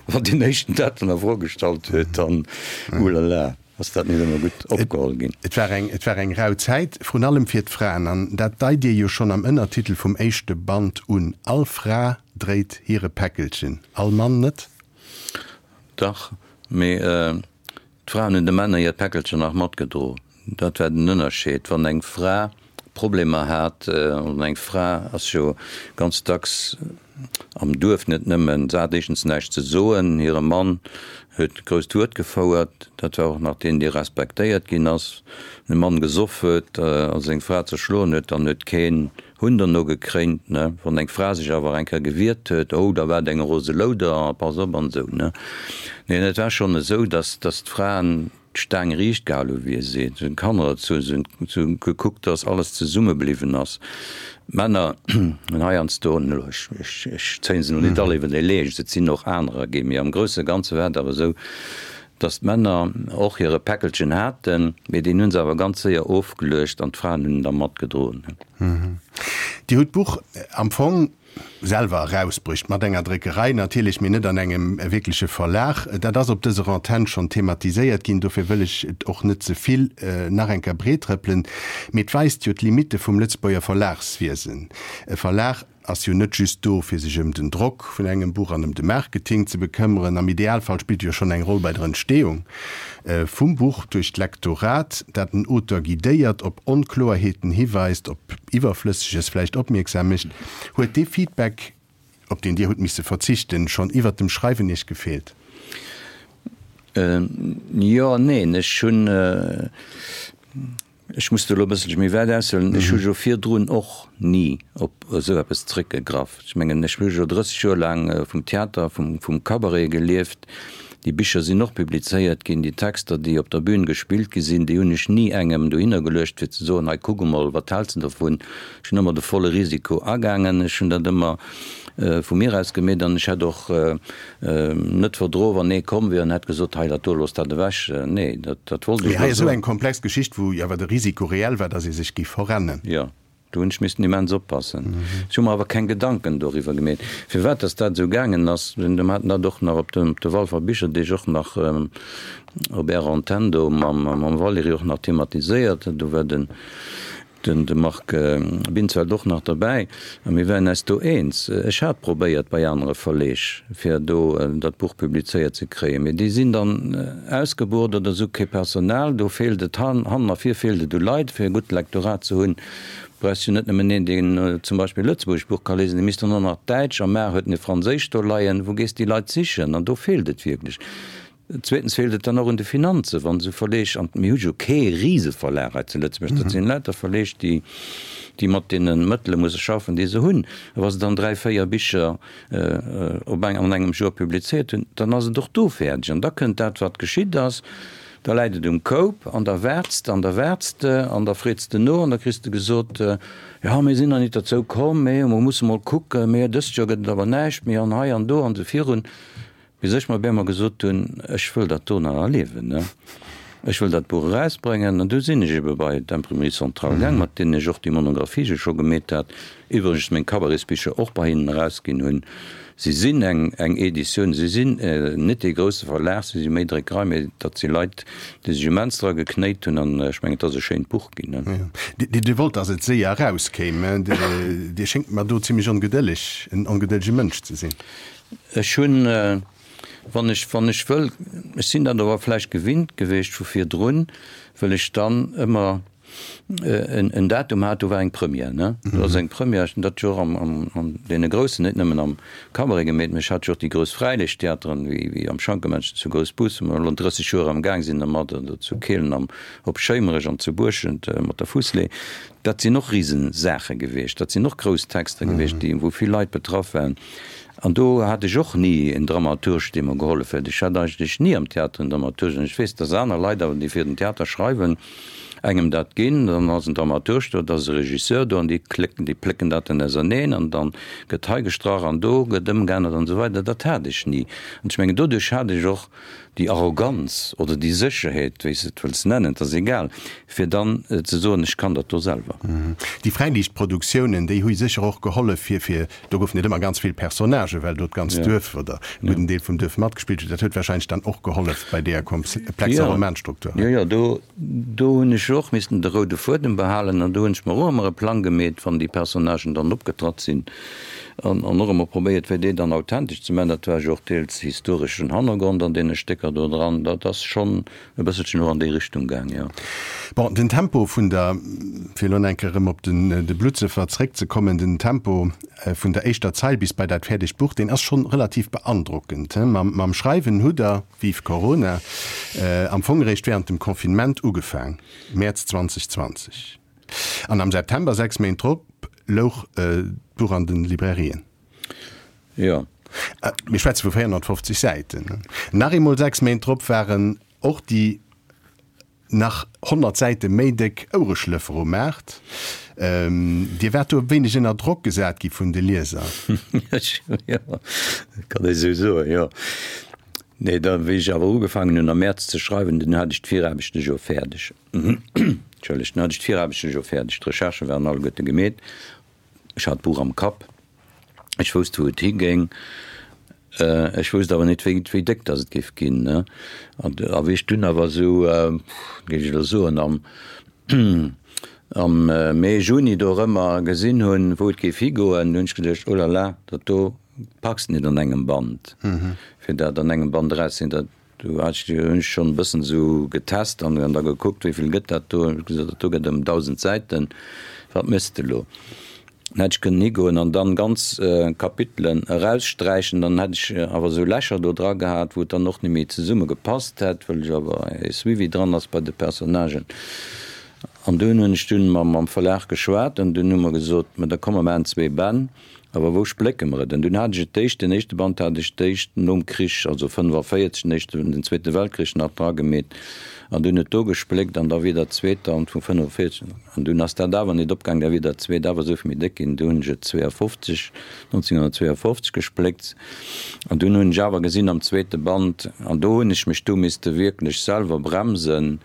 Speaker 4: wann deen éischten dat dann a Fro gestallt huet, dann, ulala. Ass dat net ëmmer gutt opgeholl ginn?
Speaker 3: Et war eng, et war eng rau Zäit, vrun allem fir d'Fraen. An dat deit Dir jo schonn am Ënnertitel vum éischte Band un, All Fra dréit hire Päckelchen, all Mann net?
Speaker 4: Dach, mee d'Fraen hunn de Männer hiert Päckelchen nach matgedro. Dat war den Ënnerscheed. Wann eng Fra Problemer hat, an eng Fra ass jo ganz dacks am Duerf net nëmmen, se hat éischtens näischt ze soen, hire Mann huet d'grousst Wuert gefouert, dat war och nach deen, dee respektéiert ginn ass. Wann e Mann gesoff huet a seng Fra zerschloen huet, dann huet keen Hunn derno gekréint, ne. Wann eng Fra sech awer eng Kéier gewiert huet, oh, da war et eng rose Louder a pass op an esou, ne. Neen, et war schonn esou, datt, datt d'Fraen d'Staang riicht gehal hu wéi ee seet, se hunn d'Kanner erzu, se hunn gekuckt, datt alles zesumme bliwwen ass. D'Männer hunn heiansdo, ech zéien se elo net all iwwer de Leescht, et sinn och anerer ginn, mee am grousse Ganze war et awer esou, datt d'Männer och hire Päckelchen haten, mee deen hu se awer ganz séier ofgeluecht an d'Fraen hunn en da matgedroen.
Speaker 3: Dir hutt d'Buch am Fong selwer erausbruecht, mat enger Dréckerei natierlech, mee net an engem wierkleche Verlag. Dat ass op dëser Antenn schonn thematiséiert ginn, dofir wëll ech et och net ze vill nach eng Kéier breettrëppelen. Mee et weist jo d'Limitte vum Lëtzebuerger Verlagswiesen. E Verlag ass jo net just do, fir sech ëm den Drock vun engem Buch an ëm de Marketing ze bekëmmeren. Am Idealfall spillt e jo schonn eng Roll bei der Entstehung vum Buch duerch d'Lektorat, dat den Auteur guidéiert, op Onkloerheeten hiweist, op Iwwerflësseges vläicht opmierksam mécht. Huet dee Feedback, op deen Dir hutt misse verzichten, schonn iwwert dem Schreiwen Iech gefeelt?
Speaker 4: Jo an neen. Ech hunn. Ech muss do elo e bësselche méi wäit aushuelen. Ech hu jo virdrun och ni op esou eppes zréckgegraff. Ech mengen, ech hu jo 30 Joer laang vum Theater, vum, vum Cabaret gelieft. Déi Bicher sinn och publizéiert ginn. Déi Texter, déi op der Bühn gespillt gi sinn, déi hunn ech ni engem dohinner geluecht, fir ze soen, hei kuck emol, wat häls de dovun? Ech hunn ëmmer de volle Risiko agaangen. Ech hunn dat ëmmer vu mir aus gemeet an ech hätt och net verdroen, wann ee komm wier an hätt gesot, hei dat do, looss dat ewech. Nee, dat, dat wollt ech
Speaker 3: Mee hei ass esou eng komplex Geschicht, wou jo awer de Risiko reell war, datt ee sech géif verrennen.
Speaker 4: Jo, do hunn ech missen immens oppassen. Ech hu mer awer keng Gedanken doriwwer gemeet, firwat datt dat esou gaangen ass. Mir haten dat och nach op de, op de Walfer Bicherdeeg och nach op Ärer Antenn do mam, mam Valérie och nach thematiséiert. Do war den. Den de Marc Binsfeld och nach derbäi, a mir waren eis do eens. Ech hat probéiert bei anere Verleeg, fir do dat Buch publizéiert ze kréien, mee déi sinn dann ausgebucht oder se hu kee Personal. Do feelt et hannen a vir feelt et u Leit, fir e gutt Lektorat ze hunn. Brauchs jo net nëmmen een, deen zum Beispill e lëtzebuergescht Buch ka liesen, dee misst dann och nach Däitsch a mar huet en e Franséischt do leien. Wou gees déi Leit sichen? An do feelt et wierklech. Zweetens feelt et dann och un de Finanzen, wann esou Verleeg, an mir hu jo kee Riseverlag hei zu Lëtzebuerg, dat sinn lauter Verleeg, déi, déi mat deene Mëttele musse schaffen, déi se hunn, a wa se dann dräi, véier Bicher op eng, an engem Joer publizéiert hunn, dann ass et och do fäerdeg. An da kënnt dat, wat geschitt ass, da läit et um Koup an da waarts de an da waarts de an da freets de no an da kriss de gesot, jo, mir sinn nach nit derzou komm, mee mer musse mol kucken, mee dëst Joer gëtt et awer näischt méi an hei an do an esou virun. Bis ech mer op eemol gesot hunn, ech wëll dat do nach erliewen, ne? Ech wëll dat Buch erausbréngen. An du sinn ech ebe bei d'Imprimerie Centrale gaang, mat deenen ech och déi Monographie scho gemeet hat, iwwregens meng Cabaretsbicher och bei hinnen erausginn hunn. Si sinn eng, eng Editioun, si sinn net dee grousse Verlag, si si méi Dréckerei, mee dat si Leit, déi sech immens dra geknéit hunn an ech mengen, et ass e schéint Buch ginn, ne?
Speaker 3: Dir wollt, datt et séier erauskéim. Dir schéngt mer do zimlech ongedëlleg, en ongedëllege Mënsch ze sinn.
Speaker 4: Ech hunn, wann ech, wann ech wëll, ech sinn dat awer vläicht gewinnt gewiescht vu virdrun, wëll ech dann ëmmer en, en Datum hat, do war eng Première, ne? Do ass eng Première, ech hunn dat jo och am, am, an deene groussen, net nëmmen am Cabaret gemeet, mä ech hat jo och déi grouss Fräiliichttheateren, wéi, wéi am Schankemännchen zu Groussbus, wou mer elo 30 Joer am Gaang sinn dermat, oder zu Kehlen am, op Schéimerech an zu Buerschent mat der Fusslee. Dat sinn och Risesaache gewiescht, dat sinn och grouss Texter gewiescht, déi, wou vill Leit betraff waren. An do hat ech och ni en Dramaturg, dee mer gehollef huet. Ech hat eigentlech ni am Theater en Dramaturg. An ech weess, dass aner Leit awer, déi fir den Theater schreiwen, engem dat ginn. Dann ass en Dramaturg do, da ass e Regisseur do an déi klécken, déi plécken dat dann auserneen an dann gëtt hei gestrach an do gëtt ëmgeännert an esou weider. Dat hat ech ni. An ech mengen, doduerch hat ech och déi Arroganz oder déi Sécherheet, wéi s de et wëlls nennen, et ass egal, fir dann ze soen, ech kann dat do selwer.
Speaker 3: Déi Fräiliichtproduktiounen, déi hu sécher och gehollef, fir, fir, do goufen et ëmmer ganz vill Personnagen, well do d'ganzt Duerf oder e gudden Deel vum Duerf matgespillt huet. Dat huet warscheinlech dann och gehollef bei deeër komplexer Romanstruktur.
Speaker 4: Jo, jo, do, do hunn ech och missten de roude Fuedem behalen an do hunn ech mer och ëmmer e Plang gemeet, wann déi Personnagen dann opgetratt sinn. An och ëmmer probéiert, fir déi dann authentesch ze maachen. Dat war jo och deels historeschen Hannergrond an deene Stécker do dran. Dat ass schonn e bësselchen och an déi Richtung gaang, jo.
Speaker 3: Bon, den Tempo vun der, fir elo nach eng Kéier erëm op den de Bluttsëffer zréckzekommen, den Tempo vun der éischter Zeil bis bei dat fäerdegt Buch, deen ass schonn relativ beandrockend. Mam, mam Schreiwen hutt Der, vive Corona, am Fong eréischt während dem Confinement ugefaang, Mäerz 2020. An am September, 6 Méint drop, louch d'Buch an den Librairien.
Speaker 4: Jo.
Speaker 3: Mir schwätze vu 450 Säiten. Nach eemol 6 Méint drop waren och déi nach 100 Säite méi déck Ouereschlëffer um Maart. Dir waart do e wéineg ënner Drock gesat gi vun de Lieser.
Speaker 4: Jo, kann ee sou soen, jo. Nee, da wéi ech awer ugefaangen hunn am Mäerz ze schreiwen, dunn hat ech d'Viraarbechte jo fäerdeg. Entschëllegt, dunn hat ech d'Viraarbechten jo fäerdeg, d'Recherchë waren alleguerte gemeet, ech hat d'Buch am Kapp, ech wousst wou et higéing, ech wousst awer net wéi wéi déck datt et géif ginn, ne. An a wéi ech dunn awer esou, géif ech elo soen, am am Mee, Juni dorëmmer gesinn hunn, wou et géif higoen, du hunn ech geduecht, oh la la, dat do packs de net an engem Band, fir dat an engem Band erauszeginn, dat Do hat ech, hunn ech schonn e bëssen esou getest an da gekuckt, wéi vill gëtt dat do. Hunn ech gesot, dat do gëtt ëm 1.000 Säiten, wat méchs de elo? Dann hätt ech kënnen higoen an dann ganz Kapitelen eraussträichen, dann hätt ech awer esou Lächer do dra gehat, wou et dann och net méi zesumme gepasst hätt, well ech awer e Suivi dran ass bei de Personnagen. An dunn hunn ech dunn mam Verlag geschwat an dunn hu mer gesot, ma da komm mer maachen zwee Bänn, awer wou splécke mer et? An dunn hat ech et d'éischt, den éischte Band hat ech d'éischt nom Krich, also 45, den éischten, den Zweete Weltkrich nach dra gemeet an dunn et do gespléckt an da wier dat zweet dann vu 45 an dunn ass dat awer nit opgaang, da wier dat zweet awer esou vill méi déck ginn, du hunn ech et 52, 1952 gespléckt an dunn hunn ech awer gesinn am zweete Band, an do hunn ech mech du misste wierklech selwer bremsen,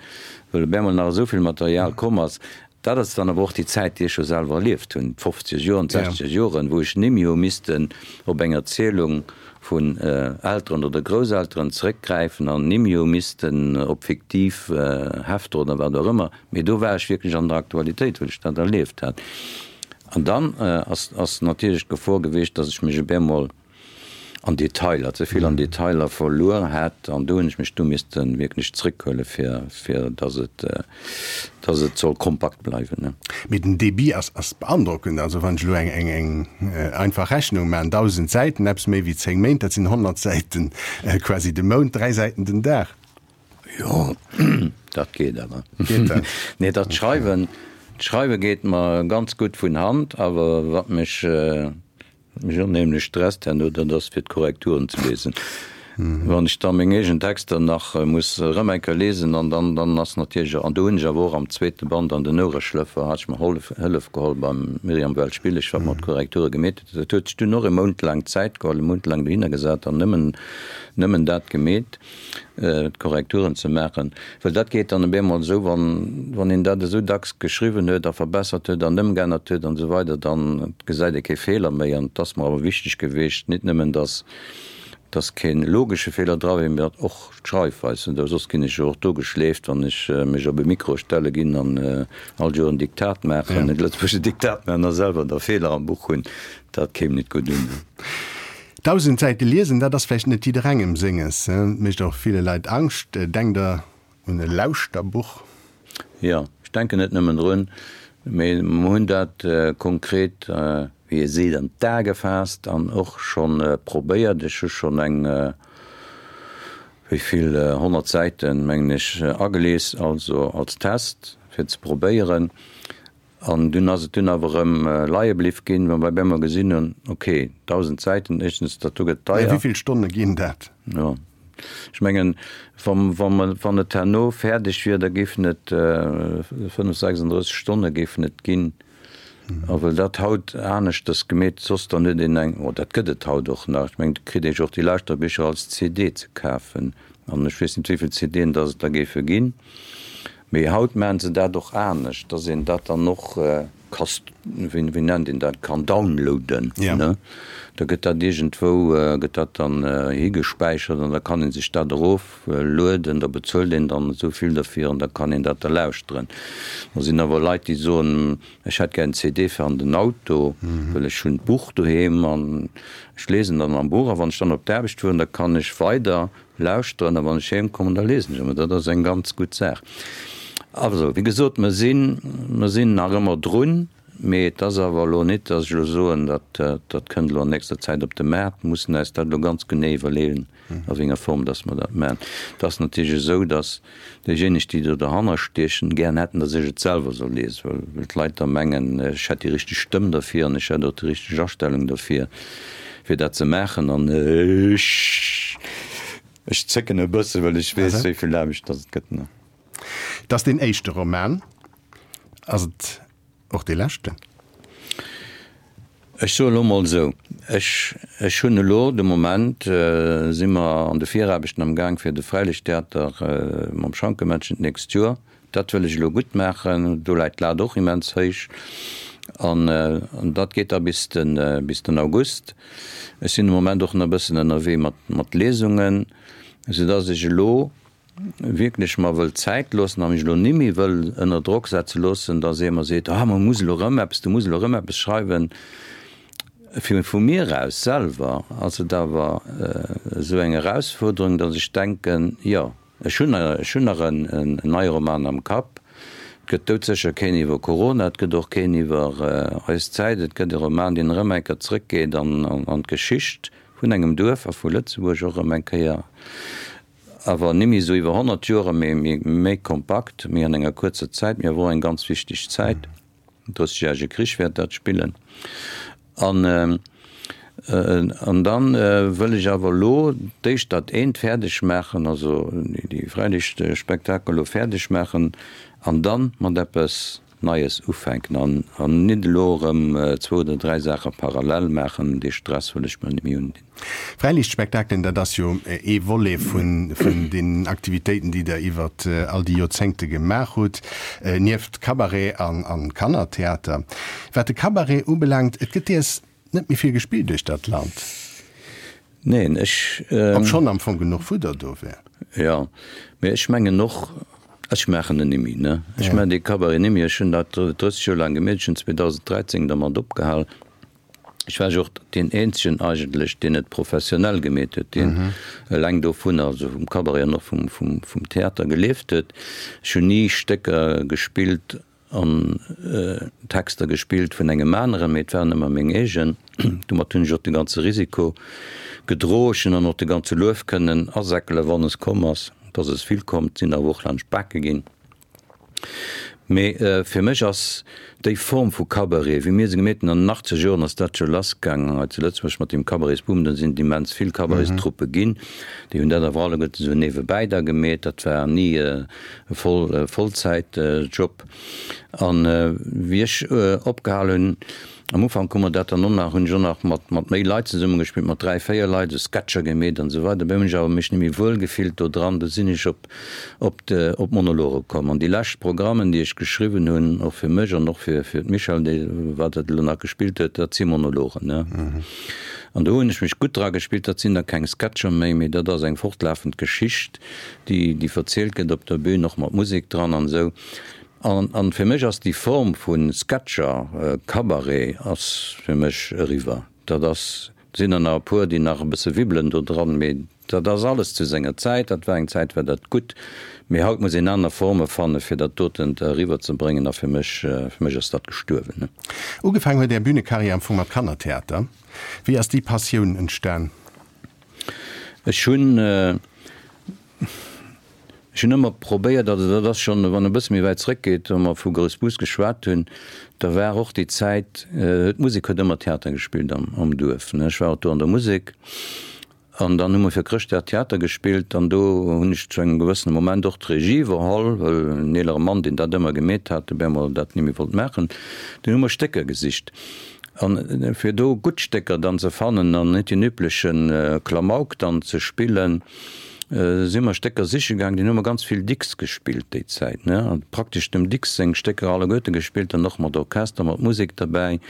Speaker 4: well op eemol nach esou vill Material komm ass. Dat ass dann awer och déi Zäit, déi ech jo selwer erlieft hunn, d'fofzeger Joren, d'sechzeger Joren, wou ech nimmi hu missten op eng Erzielung vun Elteren oder Grousselteren zeréckgräifen an nimmi hu missten op fiktiv Hefter oder wat och ëmmer, mee do war ech wierklech an der Aktualitéit, well ech dat erlieft hat. An dann ass natierlech d'Gefor gewiescht, datt ech mech op eemol an Detailer, ze vill an Detailer verluer hätt an do hunn ech mech du misste wierklech zréckhuele fir, fir datt et, datt et soll kompakt bleiwen.
Speaker 3: Mee den Débit ass, ass beandrockend. Also wann ech elo eng, eng, eng einfach Rechnung maachen, 1.000 Säiten, eppes méi wéi 10 Méint, dat sinn 100 Säiten quasi de Mount, 3 Säiten den Dag.
Speaker 4: Jo, dat geet awer. Geet dat? Nee, dat Schreiwen, d'Schreiwe geet mer ganz gutt vun Hand, awer wat mech, Wat mech onheemlech stresst herno, dat ass fir d'Korrekturen ze liesen. Wann ech da meng eegen Texter nach muss erëm eng Kéier liesen an dann, dann ass natierlech, an do hunn ech awer och am zweete Band an den Ouereschlëffer hat ech mer Hollef, Hëllef geholl beim Myriam Welsch-Billig, wat mer d'Korrekture gemeet huet. Dat huet sech dunn och e Mount laang Zäit geholl, e Mount laang dohinner gesat an nëmmen, nëmmen dat gemeet. d'Korrekturen ze maachen, well dat geet dann op eemol esou, wann, wann een dat esou dacks geschriwwen huet a verbessert huet an ëmgeännert huet an esou weider, dann gesäit ee kee Feeler méi. An et ass mer awer wichteg geweecht, nit nëmmen dass, dass kee logesche Feeler dra wier, mee datt och d'Schreifweis, oder soss ginn ech jo och do geschleeft, wann ech mech op e Mikro stelle ginn an all Joer en Diktat maachen, e lëtzebuergesche Diktat maachen a selwer da Feeler am Buch hunn, dat kéim nit gutt un.
Speaker 3: 1.000 Säite liesen, dat ass vläicht net jidderengem senges. Et mécht och ville Leit Angscht. Denkt Der un e Lauschterbuch?
Speaker 4: Jo, ech denken net nëmmen drun, mee mer hunn dat konkret, wéi ee seet, an d'A gefaasst an och scho probéiert. Ech hu schonn eng, wéi vill, 100 Säiten, mengen ech, agelies, also als Test, fir ze probéieren. An dunn ass et dunn awer erëm leie bliff ginn, well mer op eemol gesinn hunn, ok, 1.000 Säiten, éischtens, dat do gëtt
Speaker 3: deier. Wéi vill Stonne ginn dat?
Speaker 4: Jo, ech mengen, wa, wa mer, wann et herno fäerdeg wier, da géifen et 5, 36 Stonne géifen et ginn. A well dat haut aneschters gemeet, soss dann huet een eng, oh, dat gëtt et haut och nach, ech mengen, et kritt ee jo och déi Lauschterbicher als CD ze kafen. An ech weess net, wéi vill CDen dass et der géife ginn. Mee haut maachen se dat och anescht, dass een dat dann och ka, wéi nennt een dat, kann downloaden. Ne? Da gëtt dat iergendwou, gëtt dat dann higespäichert an da kann ee sech dat eroflueden. Da bezuelt een dann esou vill derfir an da kann een dat da lauschteren. Da sinn awer Leit, déi soen, ech hätt gär en CD fir an den Auto, well ech hunn d'Buch doheem an ech lesen dann am Buch a wann ech dann op d'Aarbecht fueren, da kann ech weider lauschteren a wann ech heem kommen, da lesen ech ëmmer. Dat ass eng ganz gutt Saach. Also, wéi gesot, mer sinn, mer sinn nach ëmmer drun, mee et ass awer elo nit, datt ech elo soen, dat, dat kënnt elo an nächster Zäit op de Maart. Mer mussen eis dat elo ganz genee iwwerleeën, a wéi enger Form datt mer dat maachen. Et ass natierlech esou, datt déijéineg, déi do derhanner stiechen, gären hätten, datt ech et selwer soll liesen, well, well d'Leit da mengen, ech hätt déi richteg Stëmm derfir an ech hätt och déi richteg Astellung derfir. Fir dat ze maachen an ech ech zécken e bësse well ech weess wéi vill Aarbecht datt et gëtt.
Speaker 3: Et ass deen éischte Roman. Ass et och dee leschten?
Speaker 4: Ech soe lo mol esou, ech ech hunn elo de Moment si mer an de Viraarbechten am Gaang fir de Fräilichttheater mam Schankemännchen d'nächst Joer. Dat wëll ech elo gutt maachen. Do läit d'Lat och immens héich. An dat geet da bis de, bis den August. Ech sinn de Moment och nach e bëssen ënnerwee mat, mat Lesungen, soudass ech elo wierklech mer wëll Zäit loossen a mech elo nimmi wëll ënner Drock setze loossen, dass ee mer seet, ah, mer muss elo erëm eppes, du muss elo erëm eppes schreiwen. Fir vu mir aus selwer ass et awer esou eng Erausfuerderung, dass ech denken, jo, Ech hunn ech hunn nach en neie Roman am Kapp. Et gëtt doudsécher keen iwwer Corona, et gëtt och keen iwwer eis Zäit. Et gëtt e Roman, deen erëm eng Kéier zrëckgeet an an d'Geschicht vun engem Duerf a vu Lëtzebuerg och erëm eng Kéier. Awer nimmi esou iwwer 100 Joer, mee méi kompakt, méi an enger kuerzer Zäit, mee awer och eng ganz wichteg Zäit. Den Drëssegjärege Krich wäert dat spillen. An, an dann wëll ech awer elo d'éischt dat eent fäerdeg maachen, also déi Fräiliichtspektakel elo fäerdeg maachen an dann mat eppes Neies ufänken an an nit elo erëm zwou oder dräi Saache parallel maachen, dee Stress wëll ech mer net méi undinn.
Speaker 3: Fräiliichtspektakelen, dat ass jo ee Volet vun vun den Aktivitéiten, déi Der iwwer all déi Joerzéngte gemaach hutt, nieft Cabaret an an Kannertheater. Wat de Cabaret ubelaangt, et gëtt deers net méi vill gespillt duerch dat Land.
Speaker 4: Neen, ech.
Speaker 3: Obschonn am Fong genuch Fudder do wär.
Speaker 4: Jo, mee ech mengen och, ech maachen en nimmi, ne? Ech maachen dee Cabaret nimmi. Ech hunn dat 30 Joer laang gemeet. Ech hunn 2013 dermat opgehal. Ech war jo och deen eenzegen eigentlech, deen et professionell gemeet huet, deen eleng dovunner, also vum Cabaret an och vum Theater gelieft huet. Ech hunn ni Stécker gespillt an Texter gespillt vun engem aneren, mee et waren ëmmer meng eegen. Domat hunn ech och de ganze Risiko gedro. Ech hunn dann och de ganze Luef kënnen asäckelen, wann es komm ass. Et ass es vill komm, et sinn awer och laanscht d'Bake ginn. Mee fir mech ass déi Form vu Cabaret, wéi mir se gemeet hunn, an den achtzeger Joren ass dat jo lassgaangen hei zu Lëtzebuerg mat deem Cabaretsboom, do sinn et immens vill Cabaretstruppe ginn, déi hunn dat awer alleguerten esou niewebäi da gemeet. Dat war ni e Voll Vollzäitjob. An wéi ech opgehal hunn, am Ufank hu mer dat dann och nach, hunn ech och nach mat mat méi Leit zesummegespillt, mat 3, 4 Leit, esou Sketcher gemeet an esou weider. Dobäi hunn ech awer mech net méi wuel gefillt do dran, du sinn ech op op de op d'Monologe komm. An déi lescht Programmen, déi ech geschriwwen hunn, och fir mech an och fir fir d'Michèle, déi wat dat elo nach gespillt huet, dat si Monologen, ne. An do hunn ech mech gutt dra gespillt. Dat sinn da keng Sketcher méi, mee dat ass eng fortlafend Geschicht. déi déi verzielt gëtt op der Bühn, och mat Musek dran an esou. An an fir mech ass déi Form vu Sketcher, Cabaret ass fir mech eriwwer. Dat ass, et sinn der nach e puer, déi nach e bësse wibbelen do dran, mee dat ass alles zu senger Zäit. Dat war eng Zäit, war dat gutt, mee haut muss een aner Forme fanne fir dat doten eriwwer ze bréngen a fir mech, fir mech ass dat gestuerwen.
Speaker 3: Ugefaangen huet Är Bünekarriär am Fong mat Kannertheater. Wéi ass déi Passioun entstan?
Speaker 4: Ech hunn, ech hunn ëmmer probéiert, also dat ass schonn, wann e bësse méi wäit zrëckgeet, wa mer vu Groussbus geschwat hunn, da war och déi Zäit, d'Musek huet ëmmer Theater gespillt am, am Duerf, ne. Ech war och do an der Musek an dann hu mer fir Chrëschtdag Theater gespillt an do hunn ech zu engem gewëssene Moment och d'Regie iwwerholl, well en eelere Mann, deen dat ëmmer gemeet hat, op eemol dat net méi wollt maachen. Dunn hu mer Stécker gesicht. An fir do gutt Stécker dann ze fannen an net deen übleche Klamauk dann ze spillen, si mer Stécker siche gaang. Dunn hu mer ganz vill Dicks gespillt déi Zäit, ne, an praktesch dem Dicks seng Stécker alleguerte gespillt an och mat Orchester, mat Musek derbäi.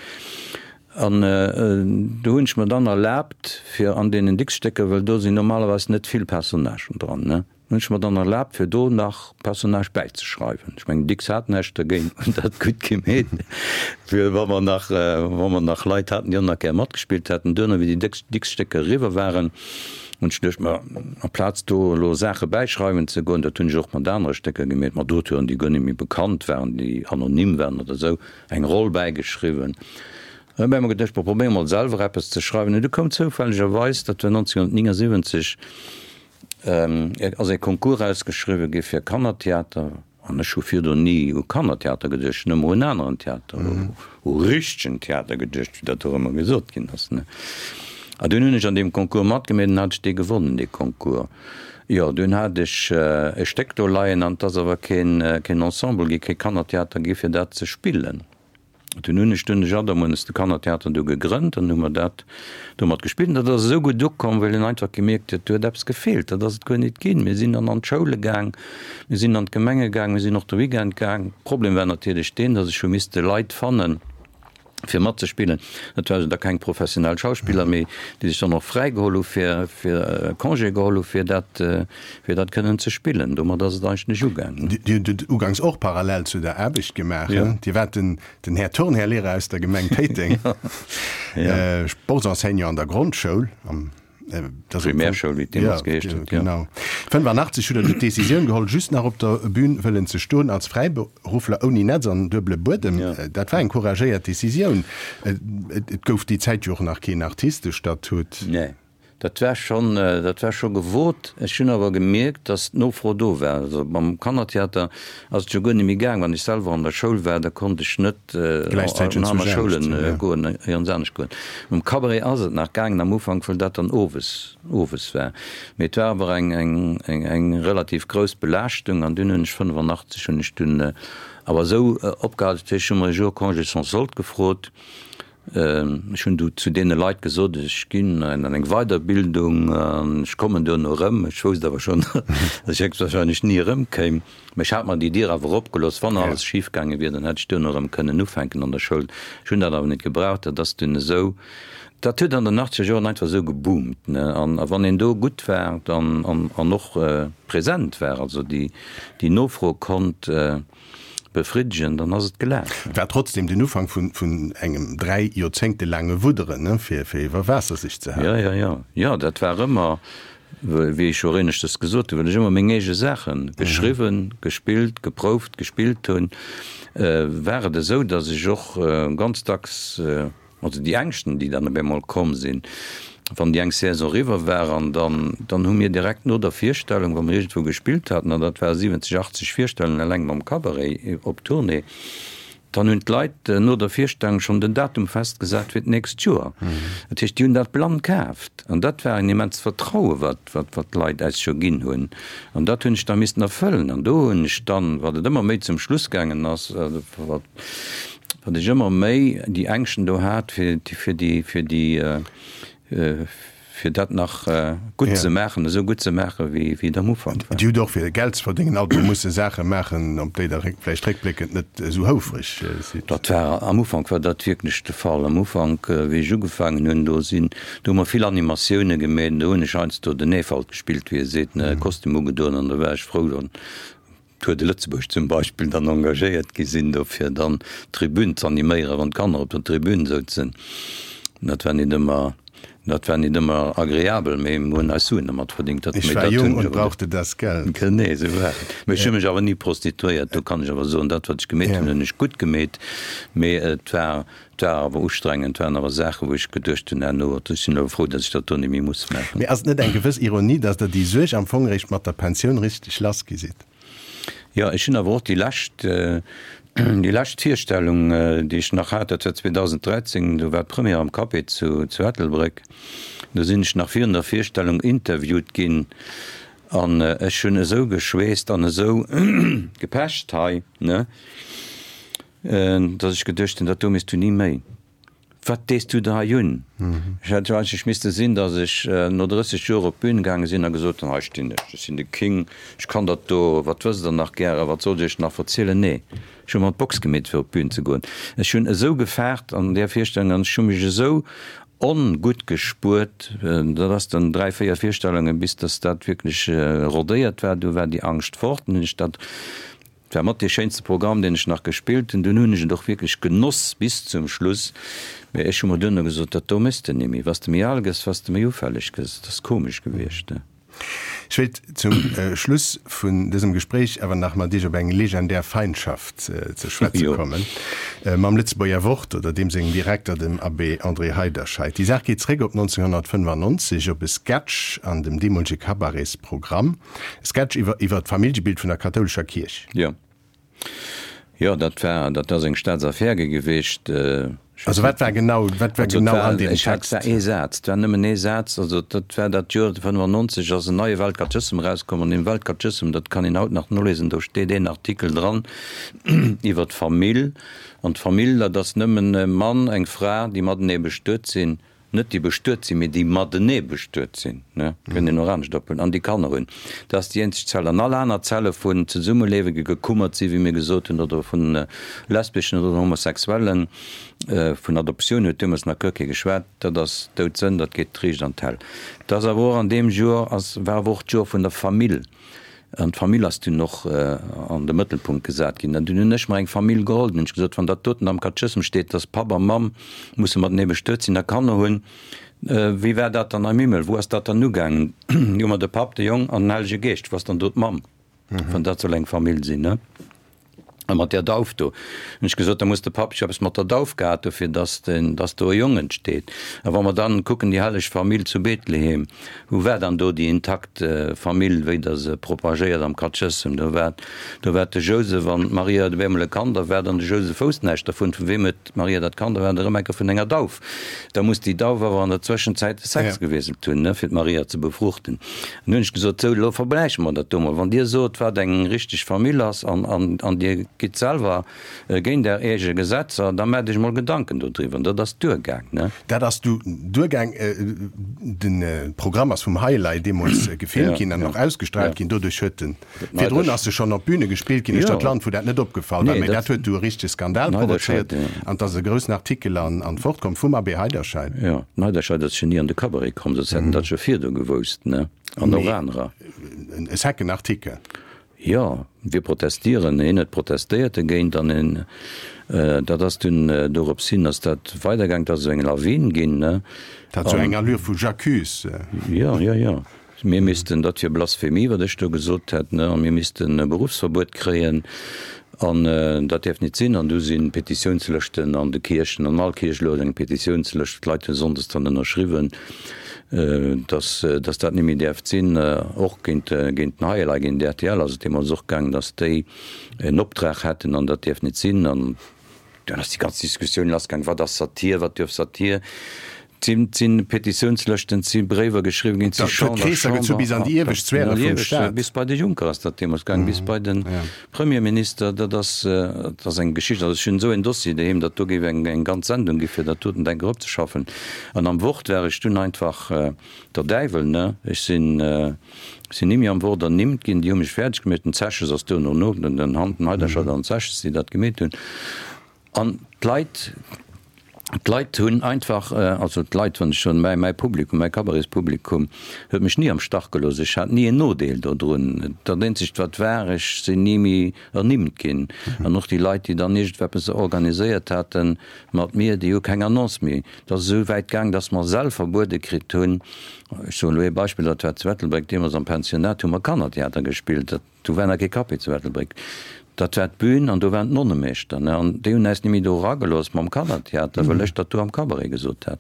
Speaker 4: An do hunn ech mer dann erlaabt, fir an deenen Dicks-Stécker, well do sinn normalerweis net vill Personnagen dran, ne, Hunn ech mer dann erlaabt fir do nach Personnage bäizeschreiwen. Ech mengen Dicks hat näischt dergéint, hunn dat gutt gemeet, fir wa mer nach, wa mer nach Leit haten, déi och nach gär matgespillt hätten. Duerno, wéi déi Dicks-Stécker eriwwer waren, hunn ech geduecht, ma amplaz do elo Saache bäischreiwen ze goen, dat hunn ech och mat anere Stécker gemeet, mat Auteuren, déi guer net méi bekannt waren, déi anonym waren oder esou, eng Roll bäigeschriwwen. Dann hu mer geduecht, ma probéiere mol selwer eppes ze schreiwen. An du koum zoufällegerweis, dat war 1979, ass ee Concours ausgeschriwwe gi fir Kannertheater an ech hu virdrun ni u Kannertheater geduecht, ech hunn ëmmer un aneren Theater, u richtegen Theater geduecht, wéi dat och ëmmer gesot ginn ass, ne. A dunn hunn ech an deem Concours matgemeet an hat ech dee gewonnen, dee Concours. Jo, dunn hat ech e Stéck do leien an et ass awer keen, keen Ensemble gi, kee Kannertheater gi fir dat ze spillen. Dunn hunn ech dunn de Jaddermuenes, de Kannertheater do gegrënnt an hu mer dat domat gespillt. An dat ass esou gutt ukomm, well een einfach gemierkt huet, do huet eppes gefeelt, dat ass et guer nit ginn. Mir sinn dann an d'Schoule gaang, mir sinn an d'Gemenge gaang, mir sinn och de Weekend gaang. Problem war natierlech deen, datt ech hu misste Leit fannen, fir matzespillen. Dat waren da keng professionell Schauspiller méi, déi sech dann och fräigeholl hu fir, fir Congé geholl hu fir dat, fir dat kënnen ze spillen. Domat ass et eigentlech ugaangen.
Speaker 3: Dir hutt et uganks och parallel zu der Aarbecht gemaach, he? Dir waart den, den Här Turnherr-Lehrer aus der Gemeng Péiteng, Sportsenseignant an der Grondschoul, am,
Speaker 4: Primärschoul, wéi et deemools geheescht huet,
Speaker 3: jo. Genau. 85 hutt Der du d'Decisioun geholl, just nach op der Bühn wëllen ze stoen, als Fräiberuffler ouni Netz an duebele Buedem. Dat war eng couragéiert Decisioun. Et gouf déi Zäit jo och nach keen Artistestatut.
Speaker 4: Nee. Dat war schonn, dat war scho gewot. Ech hunn awer gemierkt, datt d'Nofro do war. Also mam Kannertheater ass et jo guer net méi gaang. Wann ech selwer an der Schoul war, da konnt ech net an aner Schoule goen, iergends anescht goen. Mam Cabaret ass et nach gaangen am Ufank, well dat dann owes, owes war. Mee et war awer eng, eng, eng, eng relativ grouss Belaaschtung an dunn hunn ech 85 hunn ech dunn awer esou opgehal. Dat heescht, ech hu mer e Jour Congé sans solde gefrot. Ech hunn du zu deene Leit gesot, ech ginn an eng Weiderbildung an ech kommen duerno erëm. Ech wousst awer schonn, datt ech héchstwahrscheinlech ni erëmkéim. Mä ech hat mer déi Dier awer opgelooss, wann alles schif gaange wier, dann hätt ech duerno erëm kënnen ufänken an der Schoul. Ech hunn dat awer net gebraucht. Dat ass dunn esou, dat huet an den achtzeger Joren einfach esou geboomt, ne. An wann een do gutt war dann an och present war, also déi Nofro konnt befriddegen, dann ass et gelaf.
Speaker 3: War trotzdem den Ufank vun engem 3 Joerzéngte laange Wudderen, fir iwwer Waasser sech ze
Speaker 4: halen. Jo, jo, jo, jo, dat war ëmmer, wéi ech jo éineschters gesot hunn, well ech ëmmer meng eege Saache geschriwwen, gespillt, geprouft, gespillt hunn, war et esou, datt ech och ganz dacks, Also déi Ängschten, déi dann op eemol komm sinn, wann déi eng Saison eriwwer war, an dann, dann hu mir direkt no der Virstellung, wa mir iergendwou gespillt haten, an dat ware 70, 80 Virstellungen eleng mam Cabaret op Tournée, dann hunn d'Leit no der Virstellung schonn den Datum festgesat fir d'nächst Joer. Dat heescht, déi hunn dat blann kaaft. An dat war en immenst Vertraue wat, wat, wat d'Leit eis scho ginn hunn. An dat hunn ech da missten erfëllen. An do hunn ech dann, wat et ëmmer méi zum Schluss gaangen ass, wat, Datt ech ëmmer méi déi Ängschten do hat, fir, fir déi, fir déi, fir dat nach gutt ze maachen, esou gutt ze maachen, wéi, wéi et am Ufank
Speaker 3: war. Dir hutt och, fir Geld ze verdéngen, alt emol musse Saache maachen, op déi Der vläicht réckbléckend net esou houfreg
Speaker 4: sidd. Dat war, am Ufank war dat wierklech de Fall. Am Ufank, wéi ech ugefaangen hunn, do sinn, do hu mer vill Animatioune gemeet, do hunn ech heiansdo den Efalt gespillt, wéi ee seet, ne, Kostüm ugedoen an da war ech frou, dann Tour de Lëtzebuerg zum Beispill dann engagéiert gi sinn do fir dann d'Tribün z'animéieren, wann d'Kanner op der Tribün souzen. Dat war nit ëmmer, dat war nit ëmmer agreabel, mee mir hunn eis Suen dermat verdingt.
Speaker 3: Dat, Ich war jung und brauchte das Geld.
Speaker 4: Genee esou war et. Mee ech hu mech awer ni prostituéiert, do kann ech awer soen, dat wat ech gemeet hunn, hunn ech gutt gemeet, mee et war Et war awer ustrengend, et waren awer Saachen, wou ech geduecht hunn herno, ech sinn elo frou, datt ech dat do net méi muss maachen.
Speaker 3: Mee ass et net eng gewëss Ironie, datt Der déi Suerg am Fong eréischt mat der Pensioun richteg lass gi sidd?
Speaker 4: Jo, ech hunn awer och déi lescht, déi lescht Virstellung, déi ech nach hat, dat war 2013, do war d'Première am Café zu, zu Ettelbréck. Do sinn ech nach virun der Virstellung interviewt ginn an ech hunn esou geschweesst an esou gepecht hei, ne? Dass ech geduecht hunn, dat do méchs du ni méi. Wat dees du der hei un? Ech hätt jo eigentlech misste sinn, dass ech no 30 Joer op d'Bün gaange sinn a gesot hunn, hei stinn ech, ech sinn de King, ech kann dat do, wat wësst der nach gären, wat sollt ech iech nach verzielen? Nee, ech hu mer d'Box gemeet fir op d'Bün ze goen. Ech hunn esou gefaart an där Virstellung an ech hu mech esou ongutt gespuert, dat ass dann 3, 4 Virstellungen, bis dass dat wierklech rodéiert war, du war déi Angscht fort, dann hunn ech dat Et war mat dee schéinste Programm, deen ech nach gespillt hunn. Dunn hunn ech et och wierklech genoss bis zum Schluss. Mee ech hu mer duerno gesot, dat do méchs de nimmi. Wa s de méi al gëss, wa s de méi ufälleg gëss. Dat ass komesch gewiescht, ne?
Speaker 3: Ech wéilt zum Schluss vun dësem Gespréich awer nach mat Iech op eng legendär Feindschaft ze schwätze kommen, mam Lëtzebuerger Wort oder deem sengem Direkter, dem Abbé André Heiderscheid. Déi Saach geet zréck op 1995, op e Sketch an dem deemolege Cabaretsprogramm. Sketch iwwer iwwer d'Familljebild vun der kathoulescher Kierch.
Speaker 4: Jo. Jo, dat war, dat ass eng Staatsaffär geweecht.
Speaker 3: Also wat war genau, wat war genau an deem
Speaker 4: Text? Et war ee Saz, et war nëmmen ee Saz. Also dat war dat Joer 95 ass en neie Weltkatechëssem erauskomm an deem Weltkatechëssem, dat kann een haut nach nolesen, do steet een Artikel dran iwwer d'Famill. An d'Famill, dat ass nëmmen e Mann, eng Fra, déi matenee bestuet sinn. Net déi bestuet sinn, mee déi matenee bestuet sinn, ne, kënnt een och anescht ophuelen, an déi Kanner hunn. Dat ass déi eenzeg Zell. An all aner Zelle vun Zesummelewe gekummert sinn, wéi mir gesot hunn, oder vun lesbeschen oder Homosexuellen, vun Adoptioun huet deemools nach guer kee geschwat, dat ass Doudsënn, dat geet riicht an d'Häll. Dat ass awer och an deem Joer, ass, war awer och d'Joer vun der Famill. An d'Famill ass dunn och an de Mëttelpunkt gesat ginn. An dunn hunn ech mer eng Famill geholl. Dunn hunn ech gesot, wann dat doten am Katechëssem steet, dass Papp a Mamm musse matenee bestuet sinn a Kanner hunn, wéi war dat dann am Himmel? Wou ass dat dann ugaangen? Hu mer de Papp, de Jong an den Hellege Geescht. Wou ass dann do d'Mamm, wann dat soll eng Famill sinn, ne? A mat där Dauf do, hunn ech gesot, da muss de Papp jo eppes mat der Dauf gehat hu fir dass den, dass do e Jong entsteet. A wa mer dann kucken, déi helleg Famill zu Bethlehem, wou war dann do déi intakt Famill, wéi Der se propagéiert am Katechëssem? Do war, do war de Jousef an d'Maria, do wär emol e Kand erwaart an de Jousef wousst näischt dervun. Vu weem huet d'Maria dat Kand erwaart? Erëm eng Kéier vun enger Dauf. Da muss déi Dauf awer an der Zwëschenzäit de Sex gewiesselt hunn, ne, fir d'Maria ze befruchten. An hunn ech gesot, Sou, elo vergläiche mer dat do mol. Wann Dir sot, wat eng richteg Famill ass, an, an, an Dir gitt selwer géint Är eege Gesetzer, da maacht Iech mol Gedanken dodriwwer. An dat ass duergaang, ne?
Speaker 3: Dat ass du duergaang. De Programm ass vum Highlight deemools gefilmt ginn an och ausgestraalt ginn. Doduerch huet en Virdrun ass se schonn op Büne gespillt ginn uechter d'Land, wou dat net opgefall war. Mee dat huet du e richtege Skandal provozéiert an 't ass e groussen Artikel an d'Wort komm vum Abbé Heiderscheid.
Speaker 4: Jo, den Heiderscheid ass jo ni an de Cabaret komm, soss hätt en dat scho virdu gewousst, ne? An och anerer.
Speaker 3: E secken Artikel.
Speaker 4: Jo, wir protestieren. Hien huet protestéiert dogéint an en, dat ass dunn, dorops hin ass dat weidergaang, 't ass esou eng Lawin ginn, ne?
Speaker 3: Dat hat esou eng Allure vu J'accuse.
Speaker 4: Jo, jo, jo. Mir missten, dat wier Blasphemie, wat ech do gesot hätt, ne, a mir missten e Beruffsverbuet kréien an dat däerf nit sinn. An du si Petitiounslëschten an de Kierchen, an all Kierch elo eng Petitiounslëscht, d'Leit hu sonndes dann ënnerschriwwen, dass, dass dat net méi däerft sinn. Och géint, géint den High-Alive, géint rtl ass et deemools och gaangen, dass déi en Optrag hätten an dat däerf nit sinn. An dunn ass déi ganz Diskussioun lassgaang, wat ass Satir, wat duerf Satir? Et sinn Petitiounslëschten, et si Bréiwer geschriwwen ginn, et si
Speaker 3: Chamber, Chamber, bis an déi iewescht Sphäre vum Staat.
Speaker 4: Bis bei de Juncker ass dat deemools gaangen, bis bei de Premierminister. Dat ass, dat ass eng Geschicht. Also ech hunn esou en Dossier doheem, datt do géif eng eng ganz Sendung gi fir dat doten denk eropzeschaffen. An am Wort war ech dunn einfach der Däiwel, ne? Ech sinn, sinn ni méi am Wort ernimmt ginn. Déi hu mech fäerdeg gemeet. Den Zeches ass duerno no, den Heiderscheid an den Zeches, déi dat gemeet hunn. An d'Leit, d'Leit hunn einfach, also d'Leit, wann ech soen, mäi, mäi Publikum, mäi Cabaretspublikum huet mech ni am Stach gelooss. Ech hat ni en Nodeel dodrun. Dat eenzegt wat war, ech sinn ni méi ernimmt ginn. An och déi Leit, déi dann iergendweppes organiséiert hate mat mir, déi hu keng Annonce méi. Et ass esou wäit gaang, datt mer Säll verbuede kritt hunn. Ech soen elo ee Beispill, dat war zu Ettelbréck, deemools am Pensionnat hu mer Kannertheater gespillt. Dat. Do war nach kee Café zu Ettelbréck. Dat war d'Bün an do waren d'Nonnemeeschter, ne? An déi hunn äis ni méi do eragelooss mam Kannertheater, well ech dat do am Cabaret gesot hat.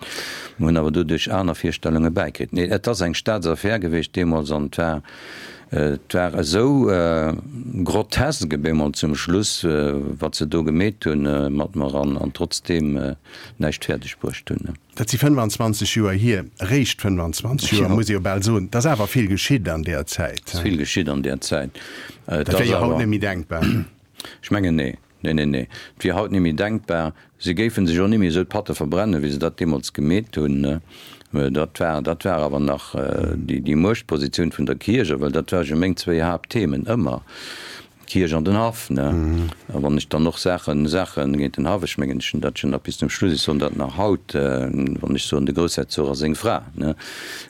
Speaker 4: Mir hunn awer doduerch aner Virstellunge bäikritt. Nee, et ass eng Staatsaffär gewiescht deemools an et war, et war esou grotesk op eemol zum Schluss, wat se do gemeet hunn mat mer an trotzdeem näischt fäerdeg bruecht hunn.
Speaker 3: Dat si 25 Joer hier, eréischt 25 Joer, muss ee jo bal soen. Et ass awer vill geschitt an deer Zäit.
Speaker 4: Et ass vill geschitt an deer Zäit.
Speaker 3: Dat wier jo haut net méi denkbar.
Speaker 4: Ech mengen, nee. Nee, nee, nee. Et wier haut net méi denkbar. Si géife sech och net méi esou d'Patte verbrennen, wéi se dat deemools gemeet hunn. Dat war, dat war awer nach déi Muechtpositioun vun der Kierch, well dat ware jo meng zwéi Haaptthemen ëmmer. D'Kierch an den Haff, ne? A wann ech dann och Saachen, Saachen géint den Haff, ech mengen, ech hunn dat schonn nach bis zum Schluss, ech soen dat nach haut, wann ech soen, de Groussherzog a seng Fra, ne?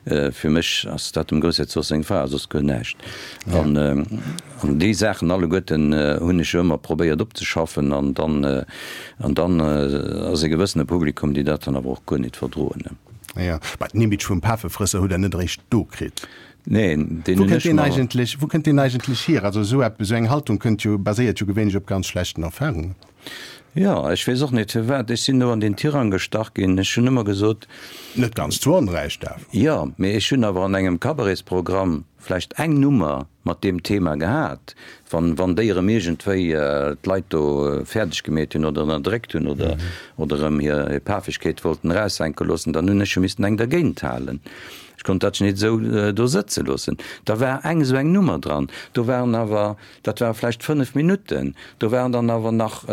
Speaker 4: Fir mech ass dat dem Groussherzog seng Fra a soss guer näischt. An, an déi Saachen alleguerten hunn ech jo ëmmer probéiert opzeschaffen an dann, an dann ass e gewëssene Publikum, déi dat dann awer och guer nit verdroen, ne?
Speaker 3: Jo, mä den Image vum Pafefrësser hutt Der net eréischt do kritt.
Speaker 4: Neen, deen
Speaker 3: Wou
Speaker 4: hunn
Speaker 3: kënnt
Speaker 4: ech
Speaker 3: deen
Speaker 4: mer.
Speaker 3: eigentlech, wou kënnt deen eigentlech hier? Also esou eppes, esou eng Haltung kënnt jo, baséiert jo gewéinlech op ganz schlechten Erfahrungen.
Speaker 4: Jo, ech weess och net firwat. Ech sinn do an deen Tirang gestach ginn. Ech hunn ëmmer gesot.
Speaker 3: Net ganz zu Onrecht awer.
Speaker 4: Jo, mee ech hunn awer an engem Cabaretsprogramm vläicht eng Nummer mat deem Thema gehat, wann, wann déi erëm iergendwéi d'Leit do fäerdeg gemeet hunn oder ënnerdréckt hunn oder, oder erëm hir, hir Pafegkeet wollten eraushänke loossen, dann hunn ech jo missten eng dergéint halen. Ech konnt dat net esou do sëtze loossen. Da war eng esou eng Nummer dran. Do waren awer, dat ware vläicht 5 Minutten, do waren dann awer nach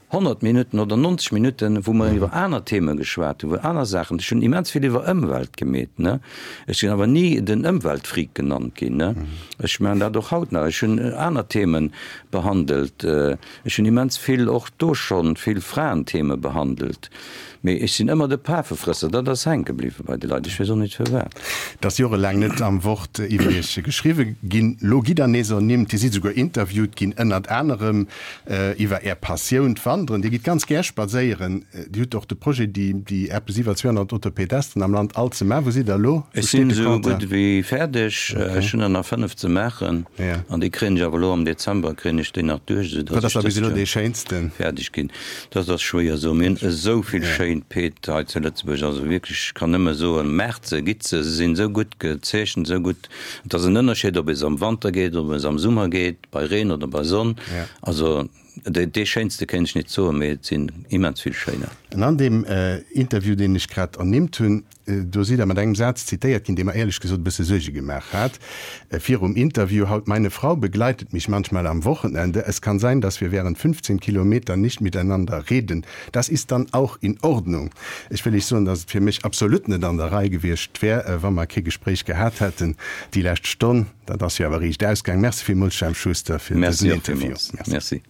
Speaker 4: 100 Minutten oder 90 Minutten, wou mer iwwer aner Theme geschwat hunn, wou aner Saachen. Ech hunn immens vill iwwer Ëmwelt gemeet, ne. Ech sinn awer ni den Ëmweltfreak genannt ginn, ne. Ech maachen dat och haut nach. Ech hunn aner Theme behandelt. Ech hunn immens vill, och do schonn, vill Fraentheme behandelt. Mee ech sinn ëmmer de Pafefrësser, dat ass hänke bliwwe bei de Leit, ech weess och net firwat.
Speaker 3: Et ass jorelaang net am Wort iwwer Iech geschriwwe ginn. Lo gitt Der nees ernimmt. Dir sidd esouguer interviewt ginn, ënnert anerem iwwer Är Passioun, d'Wanderen. Wanderen, Dir gitt ganz gär spadséieren. Dir hutt och de Projet, déi, déi eppes iwwer 200 Autopedesten am Land all ze maachen. Wou sidd Der elo?
Speaker 4: Wou Ech sinn steet de esou Compteur? gutt wéi fäerdeg. Ech hunn der nach 5 ze maachen. An déi kréien ech awer elo am Dezember kréien ech déi nach duerch, esou
Speaker 3: Wat datt ass ech da bis dëst elo Joer dee schéinsten?
Speaker 4: fäerdeg ginn. Dat ass schwéier soen. Mir hunn esou vill schéin Peed hei zu Lëtzebuerg. Also wierklech, ech kann nëmme soen, maacht se, gitt se. Se sinn esou gutt gezeechent, esou gutt. Et ass en Ënnerscheed, ob ee se am Wanter geet, ob ee se am Summer geet, bei Reen oder bei Sonn. Also dee schéinste kéint ech nit soen, mee et sinn immens vill schéiner.
Speaker 3: An an deem Interview, deen ech grad ernimmt hunn, do sidd Der mat engem Saz zitéiert ginn, dee mer éierlech gesot e bësse Suerge gemaach hat virum Interview, Haut, meine Frau begleitet mich manchmal am Wochenende. Es kann sein, dass wir während 15 Kilometern nicht miteinander reden. Das ist dann auch in Ordnung. Ech wëll Iech soen, dass et fir mech absolut net an der Rei gewiescht wär, wa mer kee Gespréich gehat hätten déi lescht Stonn. Dat ass jo awer riicht ausgaang. Merci villmools, Jemp Schuster, fir dësen
Speaker 4: Interview. Merci.